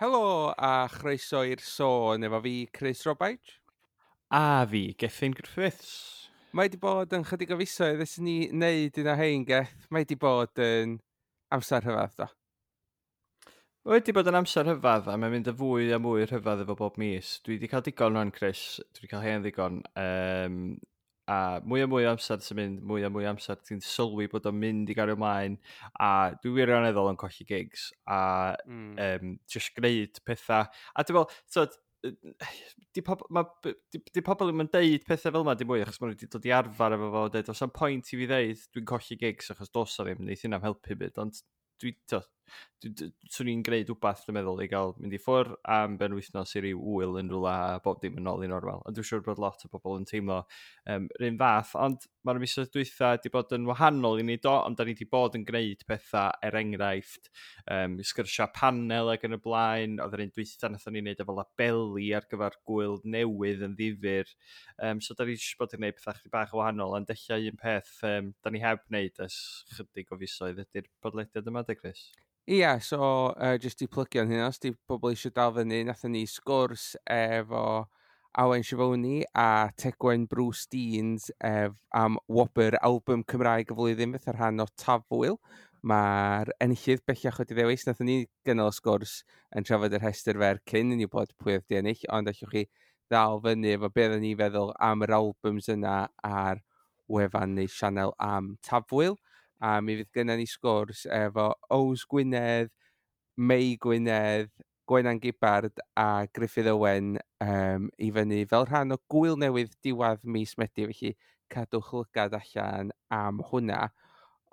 Helo a chroeso i'r sôn efo fi, Chris Robaich. A fi, Gethin Griffiths. Mae wedi bod yn chydig o fisoedd ers ni wneud un o hein, Geth. Mae wedi bod yn amser rhyfedd, do. Mae wedi bod yn amser rhyfedd a mae'n mynd yn fwy a mwy rhyfedd efo bob mis. Dwi wedi cael digon rwan, Chris. Dwi wedi cael hen ddigon. A mwy a mwy o amser sy'n mynd, mwy a mwy o amser ti'n sylwi bod o'n mynd i gario ymlaen. A dwi wirioneddol yn colli gigs a just gwneud pethau. A dwi'n meddwl, so, di pobl ddim yn deud pethau fel yma dim mwy achos maen nhw wedi dod i arfer efo fo, deud, oes am pwynt i fi ddeud dwi'n colli gigs achos dos o ddim, neith hynna'n helpu byd, ond dwi, to, swn i'n gwneud wbath, dwi'n meddwl, i gael mynd i ffwr am benwythnos i ryw ŵyl yn rhywle a bob dim yn ôl i normal. Ond dwi'n siŵr bod lot o bobl yn teimlo yr un fath, ond mae'r misoedd dwytha wedi bod yn wahanol i ni do, ond da ni wedi bod yn gwneud pethau, er enghraifft, sgyrsiau panel ac yn y blaen. Oedd yr un dwytha nathon ni wneud efo labeli ar gyfer gwyl newydd yn ddifyr. So da ni jyst bod yn gwneud pethau chydig bach o wahanol, ond ella un peth da ni heb wneud ers chydig o fisoedd ydy'r podlediad yma, de, Chris? Ia, so jyst i plygio hynna, os di pobl eisiau dal fyny, nathon ni sgwrs efo Awen Sifoni a Tegwen Bruce Deans am wobr album Cymraeg y flwyddyn fatha rhan o Tafwyl. Mae'r enillydd bellach wedi ddewis. Nathon ni gynnal y sgwrs yn trafod yr rhestr fer cyn i ni bod pwy oedd di ennill, ond allwch chi ddal fyny efo beth o'n i feddwl am yr albums yna ar wefan neu sianel am Tafwyl. A mi fydd gynnon ni sgwrs efo Ows Gwynedd, Mei Gwynedd, Gwenan Gibbard a Gruffydd Owen i fyny fel rhan o gwyl newydd diwedd mis Medi, felly cadwch lygad allan am hwnna.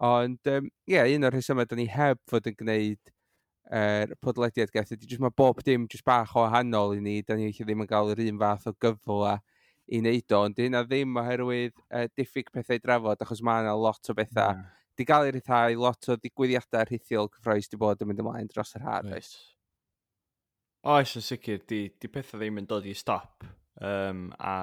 Ond ie, un o'r rhesymau da ni heb fod yn gwneud yr podlediad, Geth, ydy jyst mae bob dim jyst bach o wahanol i ni, da ni felly ddim yn gael yr un fath o gyfle i wneud o, ond hynna ddim oherwydd diffyg pethau i drafod, achos mae yna lot o bethau di gael ei rhyddhau, lot o ddigwyddiadau rhithiol cyffrous di bod yn mynd ymlaen dros yr haf, oes? Oes, yn sicr, di pethau ddim yn dod i stop. A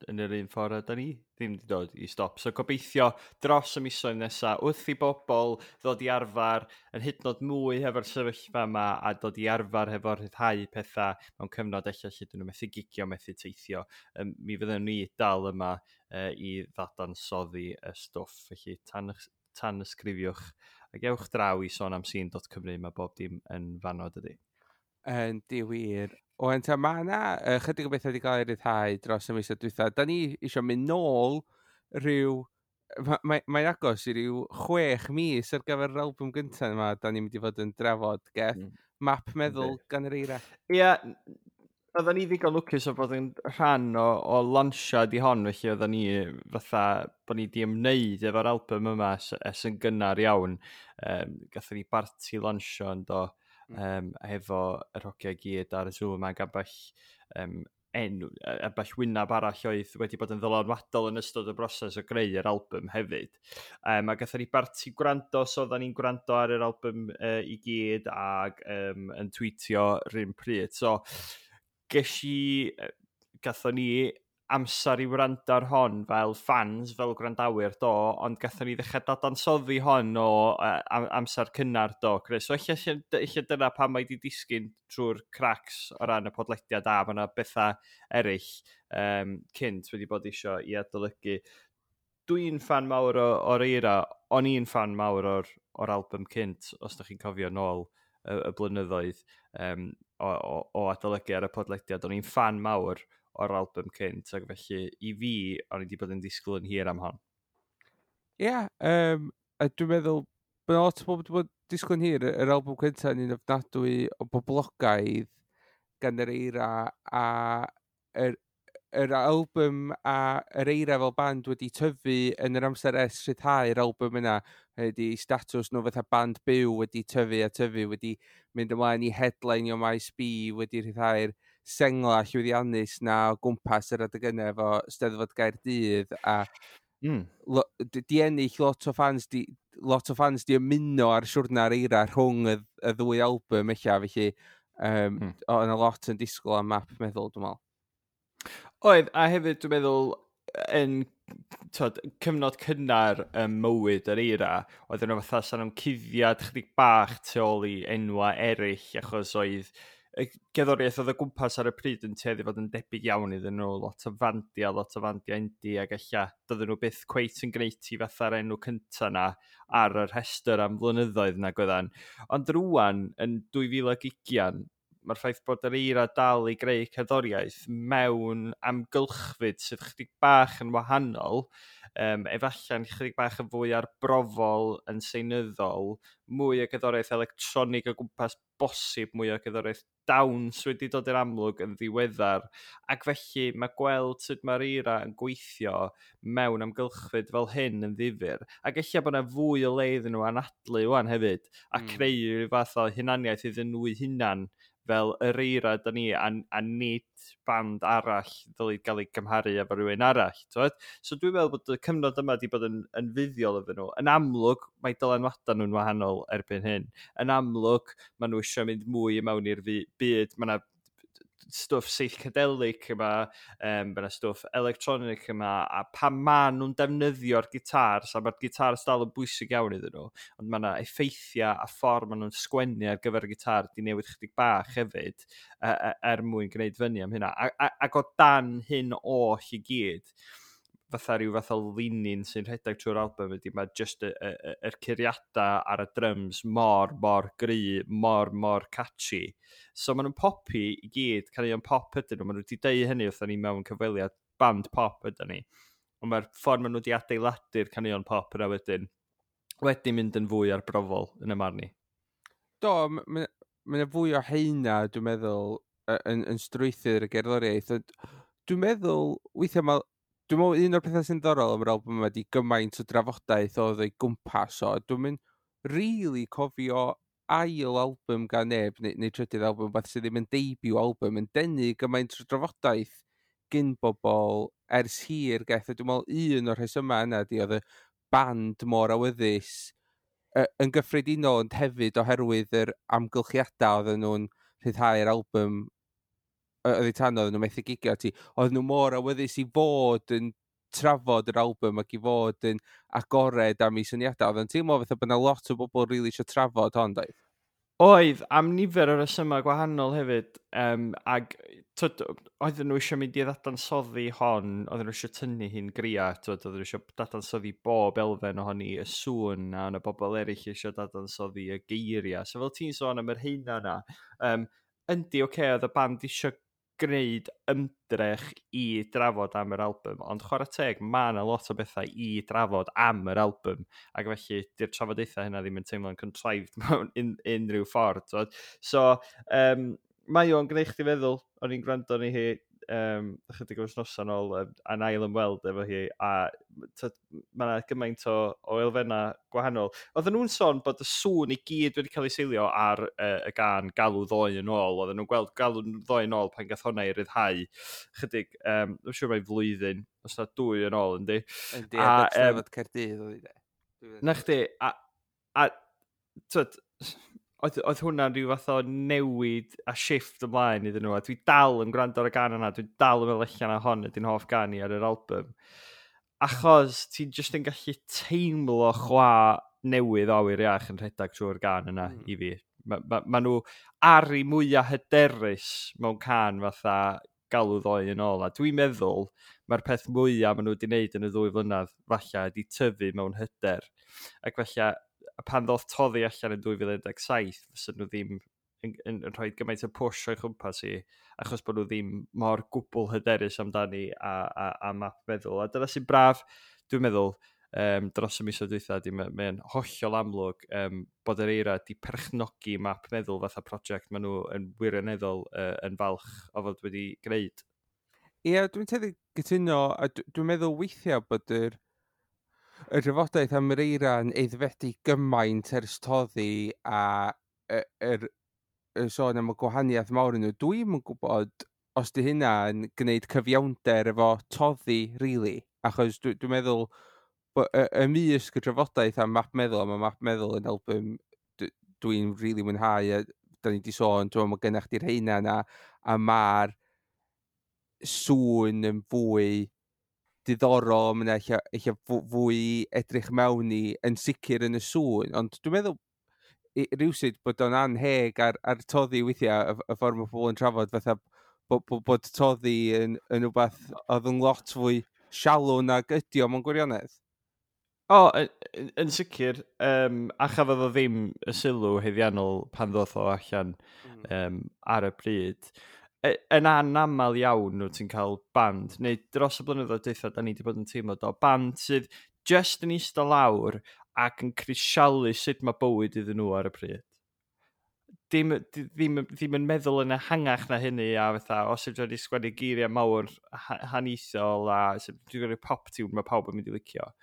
yn yr un ffordd da ni ddim wedi dod i stop. So gobeithio dros y misoedd nesaf, wrth i bobl ddod i arfer yn hyd yn oed mwy hefo'r sefyllfa yma a dod i arfer hefo'r rhyddhau pethau mewn cyfnod ella lle dyn nhw methu gigio, methu teithio, mi fyddwn ni dal yma i ddadansoddi y stwff. Felly tan ysgrifiwch ac ewch draw i sonamsîn.cymru, mae bob dim yn fanno, dydy. Yndi wir. Oen, ta, mae yna chydig o bethau wedi cael ei ryddhau dros y misoedd dwytha. Da ni eisiau mynd nôl rhyw... Mae'n agos i ryw 6 mis ar gyfer yr album gyntaf yma da ni'n mynd i fod yn drafod, Geth. Map Meddwl gan yr Eira. Ie, oedden ni ddigon lwcus o bod yn rhan o launsiad i hon, felly oedden ni fatha bod ni di ymwneud efo'r album yma ers yn gynnar iawn. Gathon ni barti lansio yn do, hefo yr hogiau gyd ar y Zoom ac ambell enw, ambell wyneb arall oedd wedi bod yn ddylanwadol yn ystod y broses o greu yr album hefyd. A gathon ni barti gwrando, so oedden ni'n gwrando ar yr album i gyd ac yn tweetio rhywun pryd. So, gathon ni amser i wrando ar hon fel fans, fel gwrandawyr, do, ond gathon ni ddechrau dadansoddi hon o amser cynnar, do, Chris. So ella dyna pam mae di disgyn trwy'r cracks o ran y podlediad, a mae yna bethau eraill cynt wedi bod isio i adolygu. Dwi'n fan mawr o'r Eira, o'n i'n fan mawr o'r album cynt, os da chi'n cofio nôl y blynyddoedd o adolygu ar y podlediad, o'n i'n fan mawr o'r album cynt, ac felly i fi, o'n i wedi bod yn disgwyl yn hir am hon. Ie, a dwi'n meddwl bod lot o bobl wedi bod yn disgwyl yn hir, yr album cyntaf yn un ofnadwy o boblogaidd gan yr Eira, a yr album a yr Eira fel band wedi tyfu yn yr amser ers rhyddhau'r album yna, ydy statws nhw fatha band byw wedi tyfu a tyfu, wedi mynd ymlaen i headline o Maes B, wedi rhyddhau'r sengla llwyddiannus na o gwmpas yr adeg yna efo Steddfod Gaerdydd, a di ennill lot o fans, di, lot o fans di ymuno ar siwrna'r Eira rhwng y ddwy album ella, felly o, yna lot yn disgwyl am Map Meddwl, dwi'n meddwl. Oedd, a hefyd dwi'n meddwl yn tod, cyfnod cynnar ym mywyd yr Eira, oedd yna fatha sa'n nhw'n cuddiad chydig bach tu ôl i enwa eraill, achos oedd Y gerddoriaeth oedd o gwmpas ar y pryd yn tueddu fod yn debyg iawn iddyn nhw, lot o fandiau indie, ac ella doedden nhw byth cweit yn gwneud i fatha'r enw cynta na ar y rhestr am flynyddoedd na gwyddan. Ond rwan, yn 2020, mae'r ffaith bod yr Eira dal i greu cerddoriaeth mewn amgylchfyd sydd chydig bach yn wahanol, efallai'n chydig bach yn fwy arbrofol yn seinyddol, mwy o gerddoriaeth electronig o gwmpas bosib, mwy o gerddoriaeth dawns wedi dod i'r amlwg yn ddiweddar, ac felly mae gweld sut mae'r Eira yn gweithio mewn amgylchfyd fel hyn yn ddifyr, ac ella bod yna fwy o le iddyn nhw anadlu wan hefyd, a creu rhyw fath o hunaniaeth iddyn nhw eu hunan fel yr Eira da ni, a nid band arall ddylid gael ei gymharu efo rhywun arall. T'wod? So dwi'n meddwl bod y cyfnod yma wedi bod yn fuddiol iddyn nhw. Yn amlwg, mae dylanwadau nhw'n wahanol erbyn hyn. Yn amlwg, maen nhw eisiau mynd mwy i mewn i'r byd. Mae yna stwff psychedelic yma, mae yna stwff electronic yma, a pan maen nhw'n defnyddio'r gitars, a mae'r gitars dal yn bwysig iawn iddyn nhw, ond mae yna effeithiau a ffordd maen nhw'n sgwennu ar gyfer y gitar di newid chydig bach hefyd, er mwyn gwneud fyny am hynna. Ac o dan hyn oll i gyd, fatha rhyw fath o linyn sy'n rhedeg trwy'r album ydy, mae just yr curiadau ar y drums mor, mor gry, mor, mor catchy. So maen nhw'n popi i gyd, caneuon pop ydyn nhw, maen nhw wedi deud hynny wrthon ni mewn cyfweliad, band pop ydyn ni. Ond mae'r ffordd maen nhw wedi adeiladu'r caneuon pop yna wedyn, wedi mynd yn fwy arbrofol yn y marn i. Do, mae yna fwy o heina, dwi'n meddwl, yn strwythur y gerddoriaeth. Ond dwi'n meddwl, weithiau mae... Dwi'n meddwl un o'r pethau sy'n ddiddorol am yr album yma di gymaint o drafodaeth oedd o'i gwmpas o. Dwi'n mynd really cofio ail album gan neb, neu trydydd album, beth sydd ddim yn debut album, yn denu gymaint o drafodaeth gyn bobl ers hir geth. A dwi'n meddwl un o'r rhesymau yna di oedd y band mor awyddus yn gyffredinol, ond hefyd oherwydd yr amgylchiadau oedden nhw'n rhyddhau'r album oedd eu tan oedden nhw'n methu gigio ti, oedden nhw mor awyddus i fod yn trafod yr album ac i fod yn agored am eu syniadau. Oedd yn teimlo fatha bod yna lot o bobl rili eisiau trafod hon, doedd? Oedd, am nifer o resymau gwahanol hefyd, ag tyd, oedden nhw eisiau mynd i ddadansoddi hon, oedden nhw eisiau tynnu hi'n gria, tyd, oedden nhw eisiau dadansoddi bob elfen ohoni, y sŵn, a yna bobl eraill eisiau dadansoddi y geiriau. So fel ti'n sôn am yr heina yna, yndi, oce, okay, oedd y band eisiau gwneud ymdrech i drafod am yr album, ond chwarae teg, mae yna lot o bethau i drafod am yr album, ac felly di'r trafodaethau hynna ddim yn teimlo'n contrived mewn unrhyw ffordd. T'wod? So, mae o'n gwneud chdi feddwl, o'n i'n gwrando ni hi ychydig o wythnosau nôl, a'n ail ymweld efo hi, a tyd, mae yna gymaint o elfennau gwahanol. Oedden nhw'n sôn bod y sŵn i gyd wedi cael ei seilio ar y gân Galw Ddoe yn ôl. Oedden nhw'n gweld Galw Ddoe yn ôl pan gath hwnna i ryddhau chydig, dwi'n siŵr mai flwyddyn, os na dwy yn ôl, yndi? Yndi, a Steddfod Caerdydd oedd hi de. Na chdi, a tyd, oedd hwnna'n rhyw fath o newid a shift ymlaen iddyn nhw, a dwi dal yn gwrando ar y gân yna, dwi dal yn meddwl allan na hon ydy'n hoff gân i ar yr album. Achos ti'n just yn gallu teimlo chwa newydd o awyr iach yn rhedeg trwy'r gân yna i fi. Ma nhw ar eu mwyaf hyderus mewn cân fatha Galw Ddoe yn ôl. A dwi'n meddwl mae'r peth mwyaf maen nhw wedi wneud yn y 2 flynedd falle ydy tyfu mewn hyder. Ac falle pan ddoth Toddi allan yn 2017, fysa nhw ddim yn rhoi gymaint o push o'i chwmpas i, achos bod nhw ddim mor gwbl hyderus amdani a Map Meddwl. A dyna sy'n braf, dwi'n meddwl, dros y misoedd dwytha, di mae'n hollol amlwg bod yr Eira di perchnogi Map Meddwl fatha prosiect maen nhw yn wirioneddol yn falch o fod wedi gwneud. Ie, dwi'n tueddu gytuno, a dwi'n meddwl weithiau bod yr drafodaeth am yr Eira yn aeddfedu gymaint ers Toddi a y sôn am y gwahaniaeth mawr yn nhw. Dwi'm yn gwybod os di hynna yn gwneud cyfiawnder efo Toddi, really. Achos dwi'n meddwl bod ymysg y drafodaeth am Map Meddwl, a mae Map Meddwl yn album dwi'n really mwynhau, a da ni di sôn, dwi'n meddwl mae gennych chdi'r heina yna, a mae'r sŵn yn fwy diddorol, mae'n eich fwy edrych mewn i yn sicr yn y sŵn, ond dwi'n meddwl Rywsut bod o'n anheg ar Toddi weithiau, y ffordd mae pobl yn trafod, fatha bod Toddi yn rhywbeth oedd yn lot fwy shallow nag ydi o mewn gwirionedd. O, yn sicr, a chafodd o ddim y sylw haeddiannol pan ddoth o allan ar y pryd. Yn anamal iawn nhw ti'n cael band, neu dros y blynyddoedd dwytha, da ni wedi bod yn teimlo do, band sydd just yn eistedd lawr ac yn crisialu sut mae bywyd iddyn nhw ar y pryd. Ddim yn meddwl yn ehangach na hynny a fatha, os ydw wedi sgwennu geiriau mawr haniaethol a sut dwi'n gwneud pop tune mae pawb yn mynd i licio.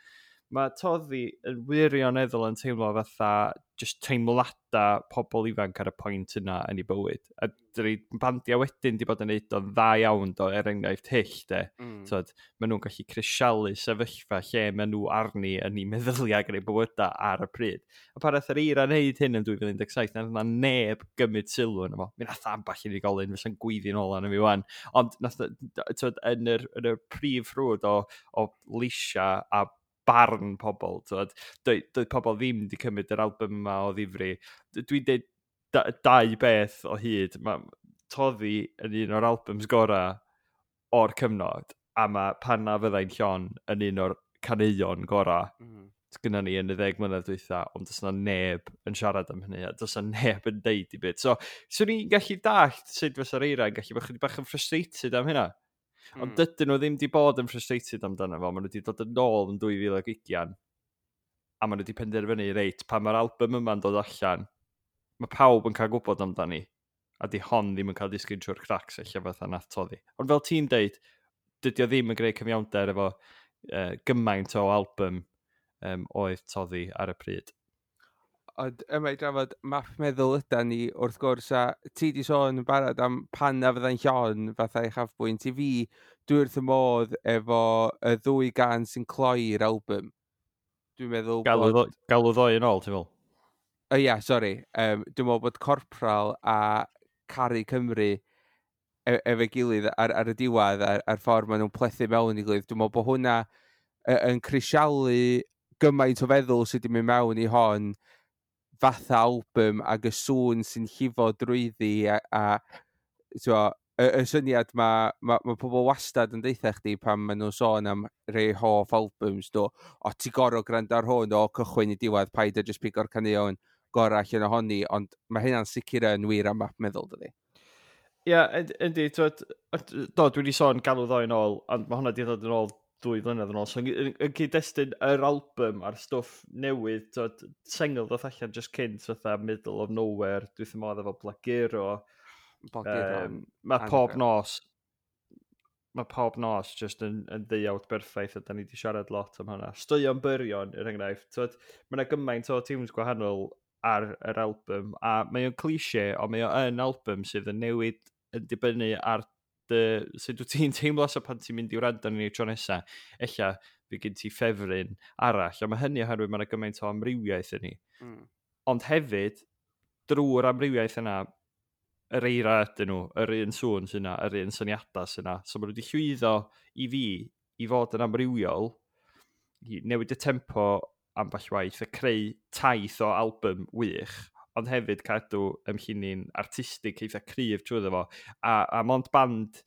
Mae Toddi yn wirioneddol yn teimlo fatha just teimlada pobl ifanc ar y pwynt yna yn ei bywyd. A dyna bandiau wedyn di bod yn neud o'n dda iawn do, er enghraifft Hyll, de. Tyd, maen nhw'n gallu crisialu sefyllfa lle maen nhw arni yn eu meddyliau ac yn eu bywydau ar y pryd. A pan nath yr Eira wneud hyn yn 2017, nath yna neb gymryd sylw yna fo. Mi nath ambell unigolyn fysa'n gweiddi'n ôl arno fi wan. Ond nath, tyd, yn y prif ffrwd o leisia a barn pobl, tyd, doedd pobl ddim wedi cymryd yr album yma o ddifri. Dwi'n dweud dau beth o hyd. Mae Toddi yn un o'r albums gorau o'r cyfnod, a mae Pan Na Fyddai'n Llon yn un o'r caneuon gorau gynna ni yn y 10 mlynedd dwytha, ond does na neb yn siarad am hynny, a does na neb yn deud i byd. So, swn i'n gallu dallt sut fysa'r Eira yn gallu bod chydig bach yn frustrated am hynna. Ond dydyn nhw ddim wedi bod yn frustrated amdano fo, maen nhw wedi dod yn ôl yn 2020, a maen nhw wedi penderfynu, reit, pan mae'r album yma'n dod allan, mae pawb yn cael gwybod amdani, a di hon ddim yn cael disgyn trwy'r cracks eich fatha nath Toddi. Ond fel ti'n deud, dydy o ddim yn gwneud cyfiawnder efo gymaint o album oedd Toddi ar y pryd. Ond yma i drafod Map Meddwl yda ni, wrth gwrs, a ti di sôn yn barod am Pan Na Fyddai'n Llon fatha uchafbwynt. I fi, dwi wrth y modd efo y ddwy gan sy'n cloi'r album. Dwi'n meddwl Galw, bod Galw Ddoe yn ôl, ti'n meddwl? O ia, sori. Dwi'n meddwl bod Corporal a Caru Cymru efo'i gilydd ar y diwedd, ar ffordd maen nhw'n plethu mewn i gilydd. Dwi'n meddwl bod hwnna yn crisialu gymaint o feddwl sydd wedi mynd mewn i hon fatha album ac y sŵn sy'n llifo drwyddi a t'mo, y syniad ma pobl wastad yn deutha chdi pan maen nhw'n sôn am rei hoff albums do, o ti gorau gwrando ar hwn o cychwyn i diwedd, paid a just pigo'r caneuon gorau allan ohoni, ond mae hynna'n sicr yn wir am Map Meddwl, dydi? Ie, yeah, yndi, twyd, do, dwi wedi sôn Galw Ddoe yn ôl, ond mae hwnna wedi dod yn ôl 2 flynedd yn ôl. So, yn cyd-destun yr album a'r stwff newydd, twyd, sengl ddoth allan just cynt, fatha Middle of Nowhere, dwi wrth 'y modd efo Blaguro. Blaguro. Mae Pob Nos, mae Pob Nos just yn ddeuawd berffaith, a da ni wedi siarad lot am hwnna. Straeon Byrion, er enghraifft, twyd, mae yna gymaint o tunes gwahanol ar yr album, a mae o'n cliché, ond mae o yn album sydd yn newid yn dibynnu ar dy, sut wyt ti'n teimlo, so pan ti'n mynd i wrando arni tro nesa, ella fydd gen ti ffefryn arall, a mae hynny oherwydd mae yna gymaint o amrywiaeth yn ni. Ond hefyd, drwy'r amrywiaeth yna, yr Eira ydyn nhw, yr un sŵn sy'n yna, yr un syniadau sy'n yna. So maen nhw wedi llwyddo i fi i fod yn amrywiol, i newid y tempo ambell waith, a creu taith o album wych, ond hefyd cadw ymllinyn artistig eitha cryf trwyddo fo. A mond band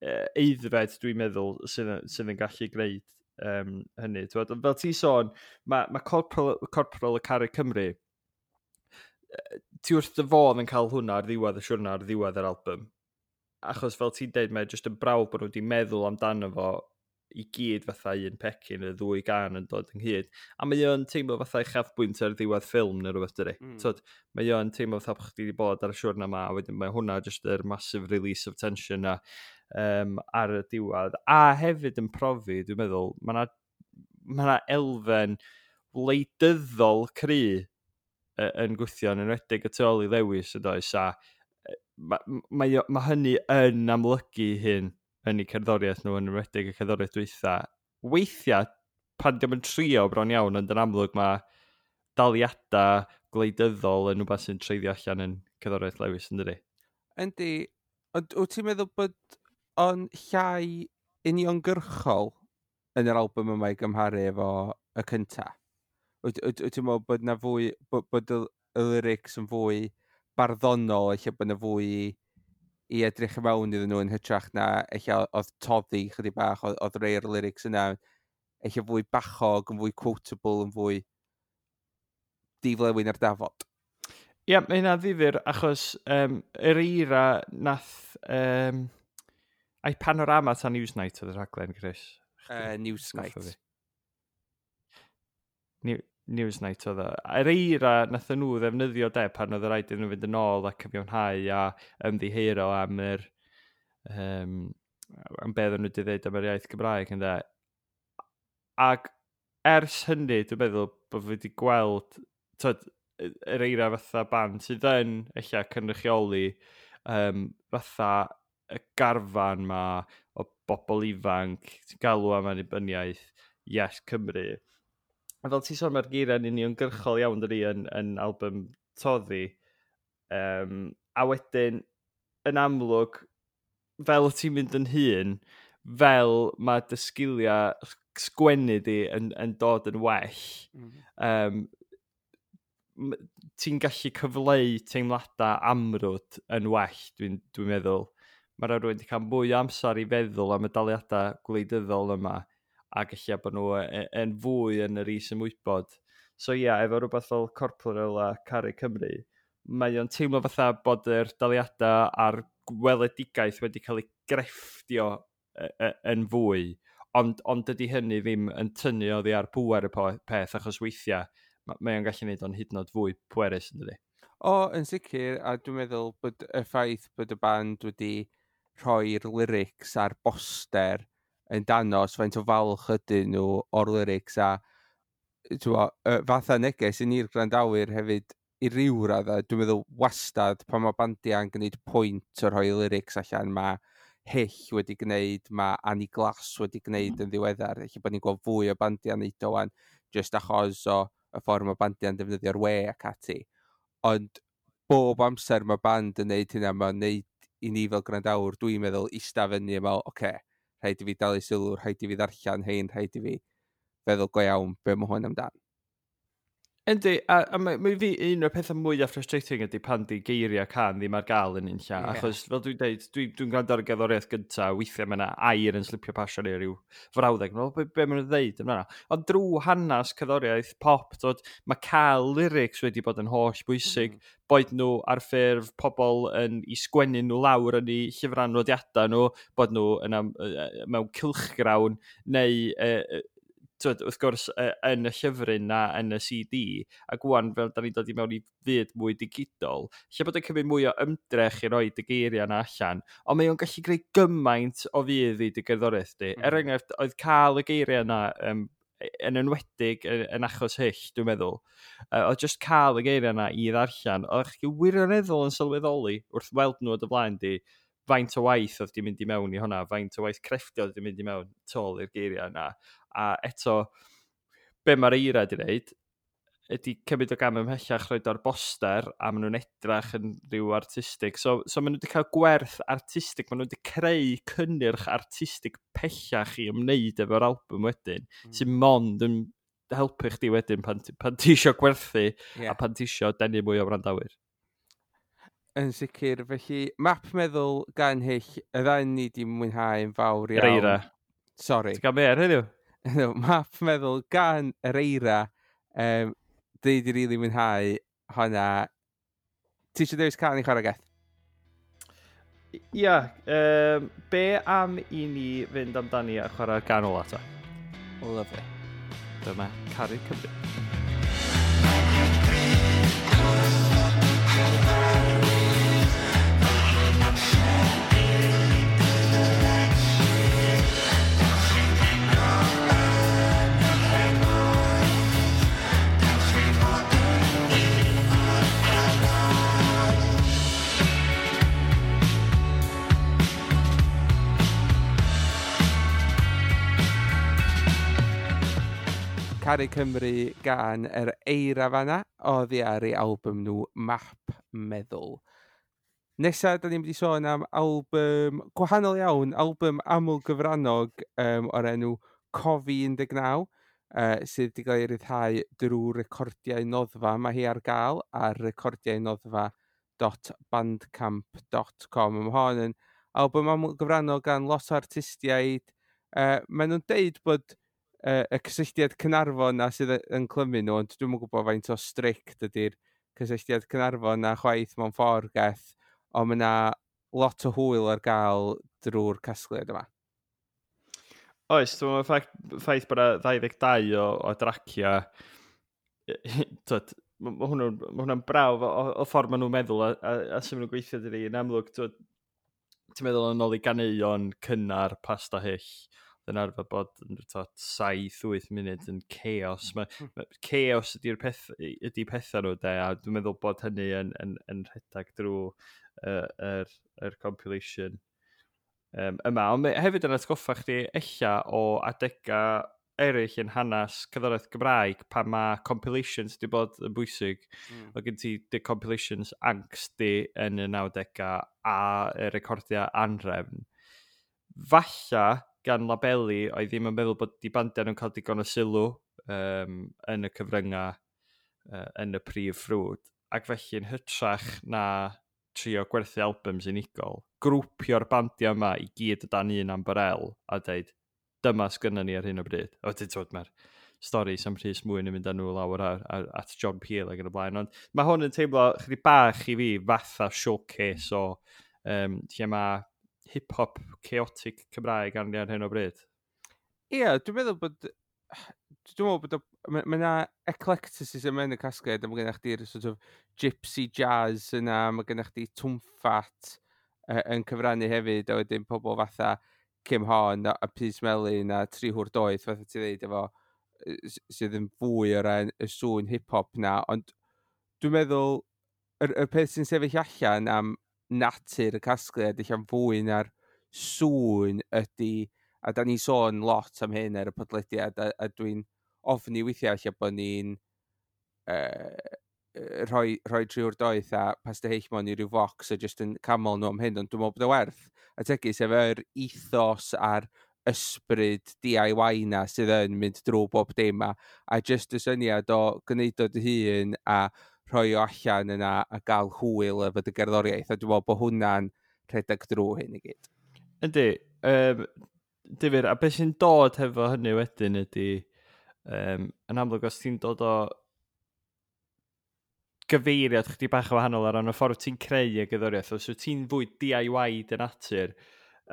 aeddfed, dwi'n meddwl, sydd yn gallu gwneud hynny. T'wod, fel ti sôn, mae Corporal a Caru Cymru, ti wrth dy fodd yn cael hwnna ar ddiwedd y siwrna, ar ddiwedd yr album. Achos fel ti'n deud, mae jyst yn brawf bod nhw wedi meddwl amdano fo i gyd fatha un pecyn, y ddwy gan yn dod ynghyd. A mae o'n teimlo fatha uchafbwynt ar ddiwedd ffilm neu rhywbeth, dydi? Tyd, mae o'n teimlo fatha bod chdi wedi bod ar y siwrna yma, a wedyn mae hwnna just yr massive release of tension na ar y diwedd. A hefyd yn profi, dwi'n meddwl, mae yna ma 'na elfen wleidyddol cry yn gwthio, yn enwedig y tu ôl i Lewys, yn does, a mae hynny yn amlygu hyn yn eu cerddoriaeth nhw, yn enwedig y cerddoriaeth dwytha. Weithiau, pan diom yn trio bron iawn, ond yn amlwg mae daliadau gwleidyddol yn rhywbeth sy'n treiddio allan yn cerddoriaeth Lewis, yn dydi? Yndi, ond wyt ti'n meddwl bod o'n llai uniongyrchol yn yr album yma i gymharu efo y cynta? Wyt ti'n meddwl bod na fwy, bod y lyrics yn fwy barddonol, ella bod yna fwy i edrych i mewn iddyn nhw yn hytrach na ella oedd Toddi chydig bach, oedd rei o'r lyrics yna ella fwy bachog, yn fwy quotable, yn fwy diflewyn ar dafod. Ie, yeah, mae hynna'n ddifyr achos Yr Eira nath... ai Panorama ta Newsnight oedd y rhaglen, Chris? Newsnight. Newsnight oedd o. Yr Eira nath nhw ddefnyddio de pan oedd y rhaid iddyn nhw fynd yn ôl a cyfiawnhau a ymddiheuro am yr am beth nhw wedi dweud am yr iaith Gymraeg, ynde. Ac ers hynny, dwi'n meddwl bod fi wedi gweld, tyd, Yr Eira fatha band sydd yn ella cynrychioli fatha y garfan ma o bobl ifanc sy'n galw am annibyniaeth, Yes Cymru. A fel ti'n sôn, mae'r geiriau'n uniongyrchol iawn dydi yn album Toddi. A wedyn, yn amlwg, fel ti'n mynd yn hŷn, fel mae dy sgiliau sgwennu di yn dod yn well, ti'n gallu cyfleu teimladau amrwd yn well, dwi'n meddwl. Mae rhaid rhywun wedi cael mwy o amser i feddwl am y daliadau gwleidyddol yma, ac ella bod nhw yn fwy yn yr is-ymwybod. So ia, yeah, efo rhywbeth fel Corporal a Caru Cymru, mae o'n teimlo fatha bod yr daliadau a'r gweledigaeth wedi cael ei grefftio yn fwy, ond dydy hynny ddim yn tynnu oddi ar pŵer y peth, achos weithiau mae o'n gallu gwneud o'n hyd yn oed fwy pwerus, yn dydi? O, yn sicr, a dwi'n meddwl bod y ffaith bod y band wedi rhoi'r lyrics ar boster yn danos faint o falch ydyn nhw o'r lyrics a fatha neges i ni'r gwrandawyr hefyd i ryw raddau, dwi'n meddwl wastad pan mae bandiau'n gwneud pwynt o rhoi lyrics allan, mae Hyll wedi gwneud, mae Annie Glass wedi gwneud yn ddiweddar, felly bod ni'n gweld fwy o bandiau'n neud o wan, just achos o y ffordd mae bandiau'n defnyddio'r we ac ati. Ond bob amser mae band yn neud hynna, mae'n neud i ni fel gwrandawr, dwi'n meddwl, ista fyny a meddwl, oce, rhaid i fi dalu sylw, rhaid i fi ddarllen hein, rhaid i fi feddwl go iawn be mae hwn amdan. Yndi, a mae fi un o'r pethau mwyaf frustrating ydy pan di geiriau can ddim ar gael yn unlla. Yeah. Achos, fel dwi'n deud, dwi'n gwrando ar y gerddoriaeth gyntaf, weithiau mae yna air yn slipio pasio neu rhyw frawddeg. Mae'n be maen nhw'n ddeud yma. Ond drwy hanes cerddoriaeth pop, dod, mae cael lyrics wedi bod yn holl bwysig. Boed nhw ar ffurf pobl yn i sgwennu nhw lawr yn eu llyfrau nodiadau nhw, bod nhw yn mewn cylchgrawn, neu wrth gwrs yn y llyfryn na yn y CD, ac wan fel da ni'n dod i mewn i fyd mwy digidol, lle bod yn cymryd mwy o ymdrech i roi dy geiriau na allan, ond mae o'n gallu greu gymaint o fudd i dy gerddoriaeth di. Er enghraifft, oedd cael y geiriau yna yn enwedig yn achos Hyll, dwi'n meddwl, oedd just cael y geiriau yna i ddarllen, oedd chi wirioneddol yn sylweddoli wrth weld nhw o dy flaen di, faint o waith oedd di mynd i mewn i hwnna, faint o waith crefftio oedd di mynd i mewn tôl i'r geiriau yna. A eto, be mae'r Eira di wneud, ydy cymryd o gam ymhellach roed o'r boster, a maen nhw'n edrach yn rhyw artistig. So maen nhw wedi cael gwerth artistig, maen nhw wedi creu cynnyrch artistig pellach i ymwneud efo'r album wedyn, sy'n mond yn helpu chdi wedyn pan ti isio gwerthu a pan ti isio denu mwy o wrandawyr. Yn sicr, felly, Map Meddwl gan Hyll, y ddau ni di mwynhau yn fawr iawn. Yr Eira. Sorry. Ti'n gael be ar heddiw? No, Map Meddwl gan Yr Eira. Dwi di rili mwynhau hwnna. Ti eisiau dewis can i chwarae, Geth? Ia, be am i ni fynd amdani a chwarae'r gan ola ta? Lovely. Dyma Caru Cymru. Caru Cymru gan Yr Eira fanna, oddi ar ei album nhw Map Meddwl. Nesa, da ni'n mynd i sôn am album gwahanol iawn, album aml gyfrannog o'r enw Cofi 19. sydd wedi cael ei ryddhau drwy Recordiau Noddfa. Mae hi ar gael ar recordiaunoddfa.bandcamp.com. Mae hon yn album aml gyfrannol gan lot o artistiaid. Maen nhw'n deud bod y cysylltiad Caernarfon na sydd yn clymu nhw, ond dwi'm yn gwybod faint o strict ydy'r cysylltiad Caernarfon na chwaith mewn ffordd geth, ond mae yna lot o hwyl ar gael drwy'r casgliad yma. Oes, dwi'n meddwl ffaith bod yna 22 o dracia, twyd, ma hwnna'n brawf o ffordd maen nhw'n meddwl a sut maen nhw'n gweithio dydi. Yn amlwg, twyd, ti'n meddwl yn ôl i ganeuon cynnar Pasta Hyll, yn arfer bod yn 7-8 munud yn chaos. Ma chaos ydy'r peth, ydy pethau nhw, de, a dwi'n meddwl bod hynny yn rhedeg drwy yr compilation yma. Ond mae hefyd yn atgoffa chdi ella o adega eraill yn hanes cerddoriaeth Gymraeg pan mae compilations wedi bod yn bwysig. O gen ti dy compilations Ankst di yn y 90au a y recordiau Anhrefn. Falla gan labeli oedd ddim yn meddwl bod di bandiau nhw'n cael digon o sylw yn y cyfryngau yn y prif ffrwd. Ac felly yn hytrach na trio gwerthu albums unigol, grwpio'r bandiau yma i gyd o dan un ambarel a dweud, dyma sgynna ni ar hyn o bryd. O, ti'n dweud, mae'r storis am Rhys Mwyn yn mynd â nhw lawr at John Peel ac yn y blaen. Ond mae hwn yn teimlo chydig bach i fi fatha showcase o lle mae hip-hop chaotic Cymraeg arni ar hyn o bryd. Ie, dwi'n meddwl bod mae yna eclecticism yn y casgliad, a mae gennych chdi'r sort of gypsy jazz yna, mae gennych chdi Twmffat yn cyfrannu hefyd, a wedyn pobl fatha Kim Hon a Pys Melyn a Tri Hwr Doeth, fatha ti ddeud, efo, sydd yn fwy o ran y sŵn hip-hop na, ond dwi'n meddwl, y peth sy'n sefyll allan am natur y casgliad, eich fwy na'r sŵn ydy, a da ni sôn lot am hyn ar y podlediad, a dwi'n ofni weithiau lle bod ni'n rhoi Tri Hwr Doeth a Pasta Hyll mewn i ryw focs a jyst yn camol nhw am hyn, ond dwi'n meddwl bod o werth. A tegu sef yr ethos a'r ysbryd DIY na sydd yn mynd drwy bob dim a jyst y syniad o gwneud o dy hun a rhoi o allan yna a gael hwyl efo dy gerddoriaeth, a dwi'n meddwl bod hwnna'n rhedeg drwy hyn i gyd. Yndi, difyr, a beth sy'n dod hefo hynny wedyn ydy, yn amlwg os ti'n dod o gyfeiriad chdi bach o wahanol ar ran y ffordd ti'n creu y gerddoriaeth, os wyt ti'n fwy DIY dy natur,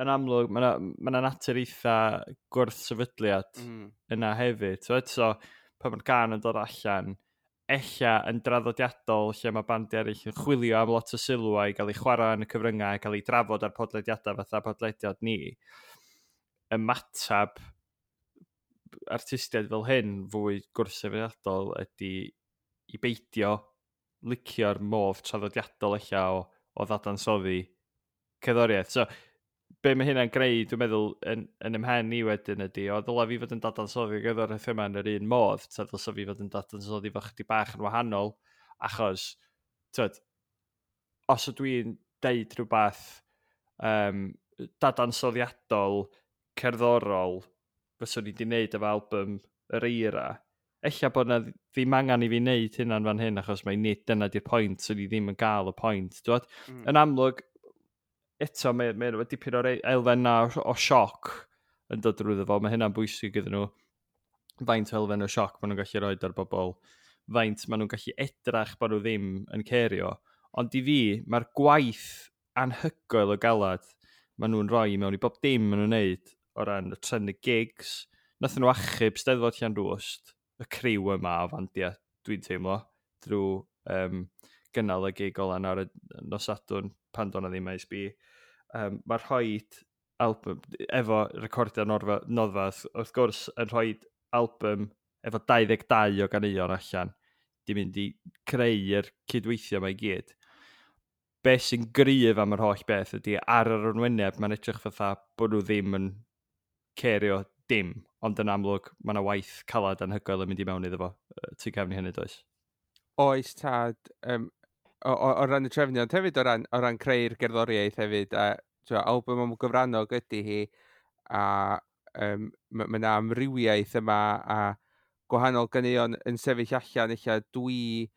yn amlwg mae 'na natur eitha gwrth-sefydliad yna hefyd. So, eto, pan mae'r gân yn dod allan, ella yn draddodiadol lle mae bandiau eraill yn chwilio am lot o sylw i gael ei chwarae yn y cyfryngau, gael ei drafod ar podlediadau fatha podlediad ni, ymatab artistiaid fel hyn fwy gwrthsefydliadol ydy i beidio licio'r modd traddodiadol ella o ddadansoddi cerddoriaeth. So, be mae hynna'n greu, dwi'n meddwl, yn ymhen i wedyn ydy, o ddylai fi fod yn dadansoddi gerddoriaeth yma yn yr un modd, ta ddylsa fi fod yn dadansoddi fo chydig bach yn wahanol, achos, tyd, os ydw i'n deud rhywbeth dadansoddiadol, cerddorol, fyswn i wedi wneud efo album Yr Eira, ella bod na ddim angen i fi wneud hynna'n fan hyn, achos mae nid dyna di'r pwynt, so ni ddim yn gael y pwynt. Dwad? Yn amlwg, eto, mae dipyn o'r elfen na o sioc yn dod drwyddo fo. Mae hynna'n bwysig iddyn nhw. Faint o elfen o sioc maen nhw'n gallu rhoi ar bobl, faint maen nhw'n gallu edrach bod nhw ddim yn cerio. Ond i fi, mae'r gwaith anhygoel o galad maen nhw'n rhoi mewn i bob dim maen nhw'n neud o ran y trefnu gigs. Nathon nhw achub Steddfod Llanrwst, y criw yma o fandiau, dwi'n teimlo, drwy gynnal y gig ola ar y nos Sadwrn pan do'n ddim Maes B. Mae'r rhoi album efo recordiau Noddfa, wrth gwrs, yn rhoi album efo 22 o ganeuon allan, di mynd i creu'r cydweithio yma i gyd. Be sy'n gryf am yr holl beth ydy ar yr arwyneb mae'n edrych fatha bod nhw ddim yn cerio dim, ond yn amlwg mae yna waith calad anhygoel yn mynd i mewn iddo fo. Tu cefn i hynny, does? Oes, tad, o ran y trefnu, ond hefyd o ran creu'r gerddoriaeth hefyd, a twa, album am gyfrannog ydy hi, a ma yna amrywiaeth yma, a gwahanol ganeuon yn sefyll allan, eich dwi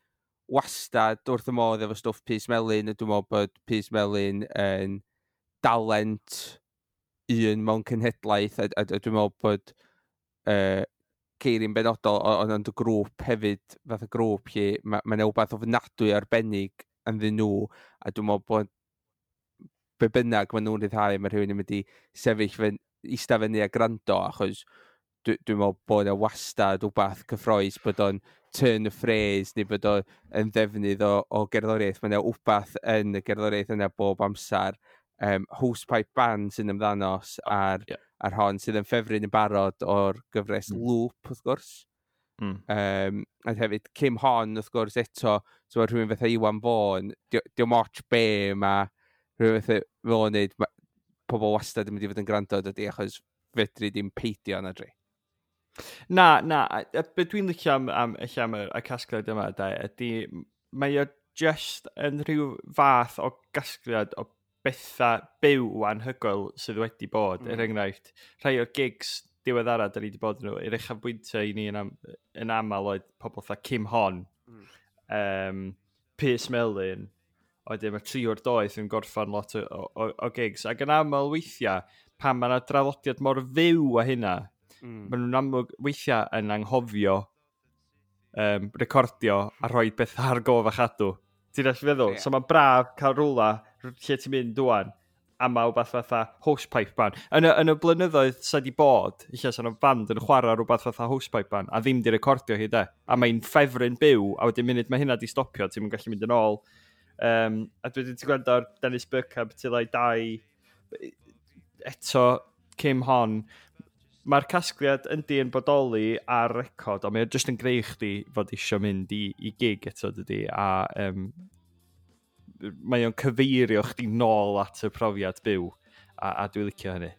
wastad wrth y modd efo stwff Pys Melyn, a dwi'n meddwl bod Pys Melyn yn dalent un mewn cenhedlaeth, a dwi'n meddwl bod Ceiri'n benodol, ond y grŵp hefyd, fath o grŵp lle mae 'na wbath ofnadwy arbennig ynddyn nhw, a dwi'n meddwl bod be bynnag maen nhw'n rhyddhau, mae rhywun yn mynd i sefyll fyny, eista fyny a gwrando, achos dwi'n meddwl bod yna wastad wbath cyffrous, bod o'n turn of phrase, neu bod o'n yn ddefnydd o gerddoriaeth. Mae yna wbath yn y gerddoriaeth yna bob amser. Hosepipe Band sy'n ymddanos ar, ar hon, sydd yn ffefryn yn barod o'r gyfres Loop, wrth gwrs. A hefyd, Kim Hon, wrth gwrs, eto, so mae rhywun fatha Iwan Fôn, dio'm ots be mae rhywun fatha fel o'n neud, pobl wastad yn mynd i fod yn gwrando, dydy, achos fedri ddim peidio na dri. Na, a be dwi'n licio am y casgliad yma, da, ydy, mae o just yn rhyw fath o gasgliad o bethau byw anhygoel sydd wedi bod. Er enghraifft, rhai o'r gigs diweddara da ni wedi bod yn nhw, i'r uchafbwyntiau i ni yn aml oedd pobl fatha Kim Hon, Pys Melyn, wedyn mae Triwr Doeth yn gorffan lot o gigs. Ac yn aml weithiau, pan mae yna draddodiad mor fyw a hynna, maen nhw'n amlwg weithiau yn anghofio recordio a rhoi bethau ar gof a chadw. Ti'n gallu feddwl? Ie. So mae'n braf cael rwla lle ti'n mynd dwan a mae rhywbeth fatha Hosepipe Band. Yn y blynyddoedd sa di bod, lle sa'n band yn chwarae rhywbeth fatha Hosepipe Band, a ddim di recordio hi de. A mae'n ffefryn byw, a wedyn munud mae hynna di stopio, ti'n gallu mynd yn ôl. A dwi wedi gwrando ar Dennis Bergkamp Till I Die, eto Kim Hon. Mae'r casgliad yndi yn bodoli ar record, ond mae o jyst yn greu chdi fod isio mynd i gig eto, dydy, a mae o'n cyfeirio chdi nôl at y profiad byw, a dwi'n licio hynny.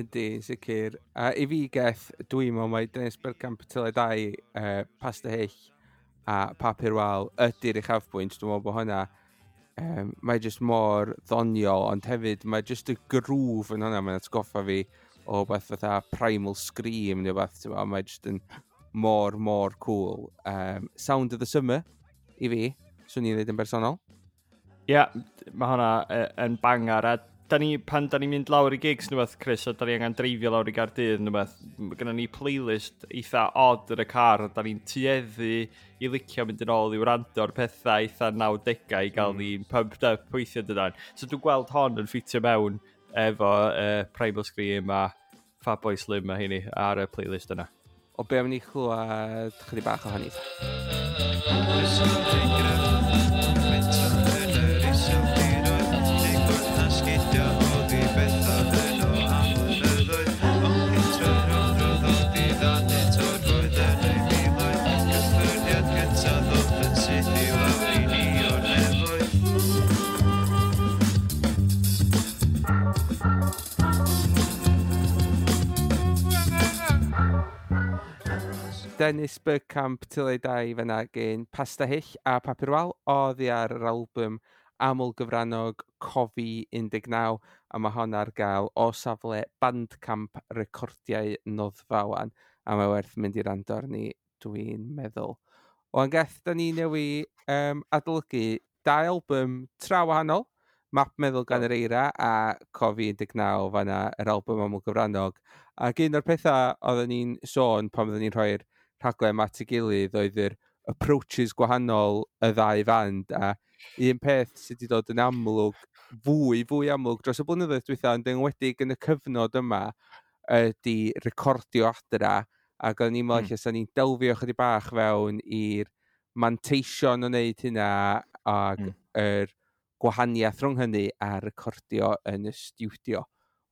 Ydy, sicr. A i fi, Geth, dwi'n meddwl mai Dennis Bergkamp Till I Die, Pasta Hyll a Papur Wal ydy'r uchafbwynt. Dwi'n meddwl bod hwnna, mae jyst mor ddoniol, ond hefyd mae jyst y groove yn hwnna, mae'n atgoffa fi o beth fatha Primal Scream neu beth, ti'n meddwl, mae jyst yn mor, mor cool. Sound of the Summer, i fi, swn i'n dweud yn bersonol. Ie, yeah, mae hwnna yn bangar, a da ni, pan da ni'n mynd lawr i gigs neu beth, Chris, a da ni angen dreifio lawr i Gaerdydd neu beth, mae gennym ni playlist eitha odd yn y car, a da ni'n tueddu i licio mynd yn ôl i wrando ar pethau eitha 90au i gael ni'n pumped up weithio dydan. So dwi'n gweld hon yn ffitio mewn efo Primal Scream a Fatboy Slim a heini ar y playlist yna. O be am ni chlywed chydig bach o hynny? Oes yn gref, mentor yn yr iseldiroedd, lle gwrth sgidio oddi bethau yno am flynyddoedd, ond pentref rhwng diddanu torfoedd yn ei miloedd, cyffyrddiad cyntaf ddoth yn syth i lawr i ni o'r nefoedd. Dennis Bergkamp Till I Die fyna gen Pasta Hyll a Papur Wal oddi ar yr album aml gyfrannog Cofi 19, a mae hon ar gael o safle Bandcamp Recordiau Noddfa wan, a mae werth mynd i rando arni, dwi'n meddwl. Wan Geth, da ni newi adolygu dau album tra wahanol, Map Meddwl gan yr Eira a Cofi 19 fanna, yr album aml gyfrannog. Ac un o'r pethau oedden ni'n sôn pan oedden ni'n rhoi'r rhaglen at ei gilydd oedd yr approaches gwahanol y ddau fand, a un peth sydd wedi dod yn amlwg, fwy amlwg dros y blynyddoedd dwytha, ond enwedig yn y cyfnod yma, ydy recordio adra, ac o'n i'n meddwl lle 'sa ni'n delfio chydig bach fewn i'r manteision o wneud hynna ac yr gwahaniaeth rhwng hynny a recordio yn y stiwdio.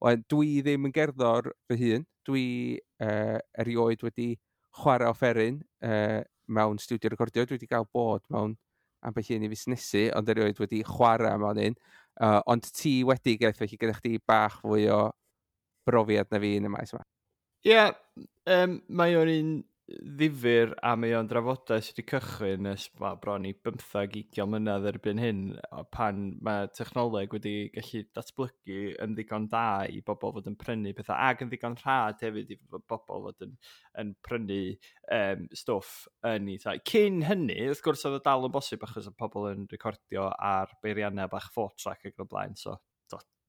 Wel, dwi ddim yn gerddor fy hun, dwi erioed wedi chwarae offeryn mewn stiwdio recordio. Dwi wedi cael bod mewn ambell un i fusnesu, ond erioed wedi chwarae mewn un. Ond ti wedi, Geth, felly gyda chdi bach fwy o brofiad na fi yn y maes yma. Ie, yeah, mae o'n un ddifyr a mae o'n drafodaeth sydd wedi cychwyn ers, well, bron i 15-20 mlynedd erbyn hyn, pan mae technoleg wedi gallu datblygu yn ddigon da i bobl fod yn prynu pethau, ac yn ddigon rhad hefyd i bobl fod yn prynu stwff yn ei tai. Cyn hynny, wrth gwrs, oedd o dal yn bosib achos oedd pobl yn recordio ar beiriannau bach 4-track ac yn y blaen, so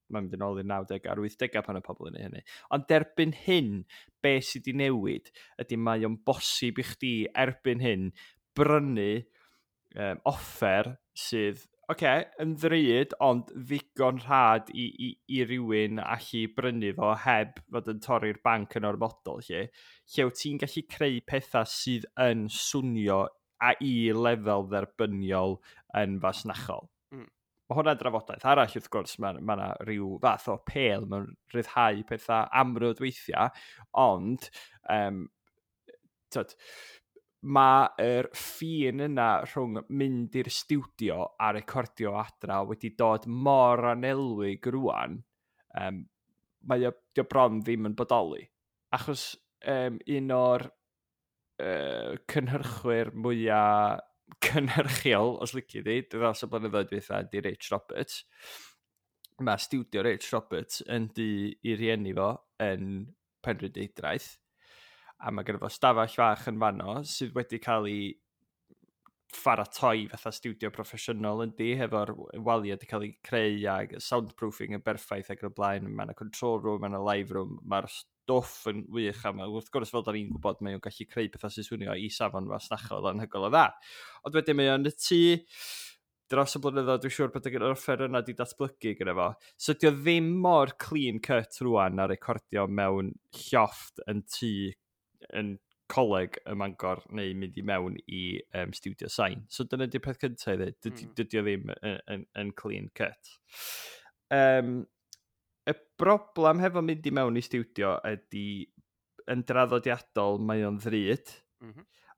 mae'n mynd yn ôl i'r 90au a'r 80au pan y pobl yn ei hynny. Ond derbyn hyn, be sydd wedi newid ydy mae o'n bosib i chdi erbyn hyn brynu offer sydd, okay, yn ddrud, ond ddigon rhad i rywun allu brynu fo heb fod yn torri'r banc yn ormodol, lle wyt ti'n gallu creu pethau sydd yn swnio a i lefel dderbyniol yn fasnachol. Mae hwnna'n drafodaeth arall, wrth gwrs, mae 'na rhyw fath o apêl mewn rhyddhau pethau amrwd weithiau, ond tyd, mae'r ffin yna rhwng mynd i'r stiwdio a recordio adra wedi dod mor anelwig rwan, mae o, dio bron ddim yn bodoli. Achos un o'r cynhyrchwyr mwyaf cynhyrchiol, os lici di, dros y blynyddoedd dwytha, di Rich Roberts. Mae stiwdio Rich Roberts yn di i rieni fo yn Penrhyndeudraeth, a mae gyda fo stafell fach yn fanno sydd wedi cael ei pharatoi fatha stiwdio proffesiynol yn di, hefo'r waliau wedi cael ei creu a soundproofing yn berffaith ac yn y blaen. Mae yna control room, mae yna live room, mae'r stwff yn wych, a mae, wrth gwrs, fel da ni'n gwybod, mae o'n gallu creu pethau sy'n swnio i safon fasnachol anhygoel o dda. Ond wedyn mae o'n y tŷ dros y blynyddoedd, dwi'n siŵr bod yr offer yna wedi datblygu gyda fo. So dio ddim mor clean cut rwan a recordio mewn llofft yn tŷ yn coleg ym Mangor neu mynd i mewn i studio sain. So dyna di'r peth cyntaf i ddweud, dydy o ddim yn clean cut. Y broblem hefo mynd i mewn i studio ydy yn draddodiadol mae o'n ddrud,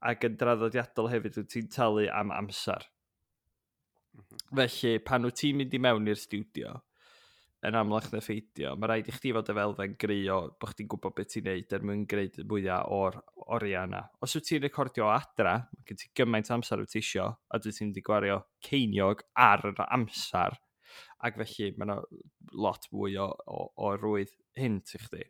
ac yn draddodiadol hefyd wyt ti'n talu am amser. Felly, pan wyt ti'n mynd i mewn i'r studio, yn amlach na pheidio, mae rhaid i chdi fod efo elfen gry o bod chdi'n gwybod beth ti'n neud er mwyn gwneud mwyaf o'r oriau yna. Os wyt ti'n recordio o adra, mae gen ti gymaint o amser wyt ti isio, a dwyt ti'n mynd i gwario ceiniog ar yr amser, ac felly mae yna lot fwy o rwydd hint i chdi.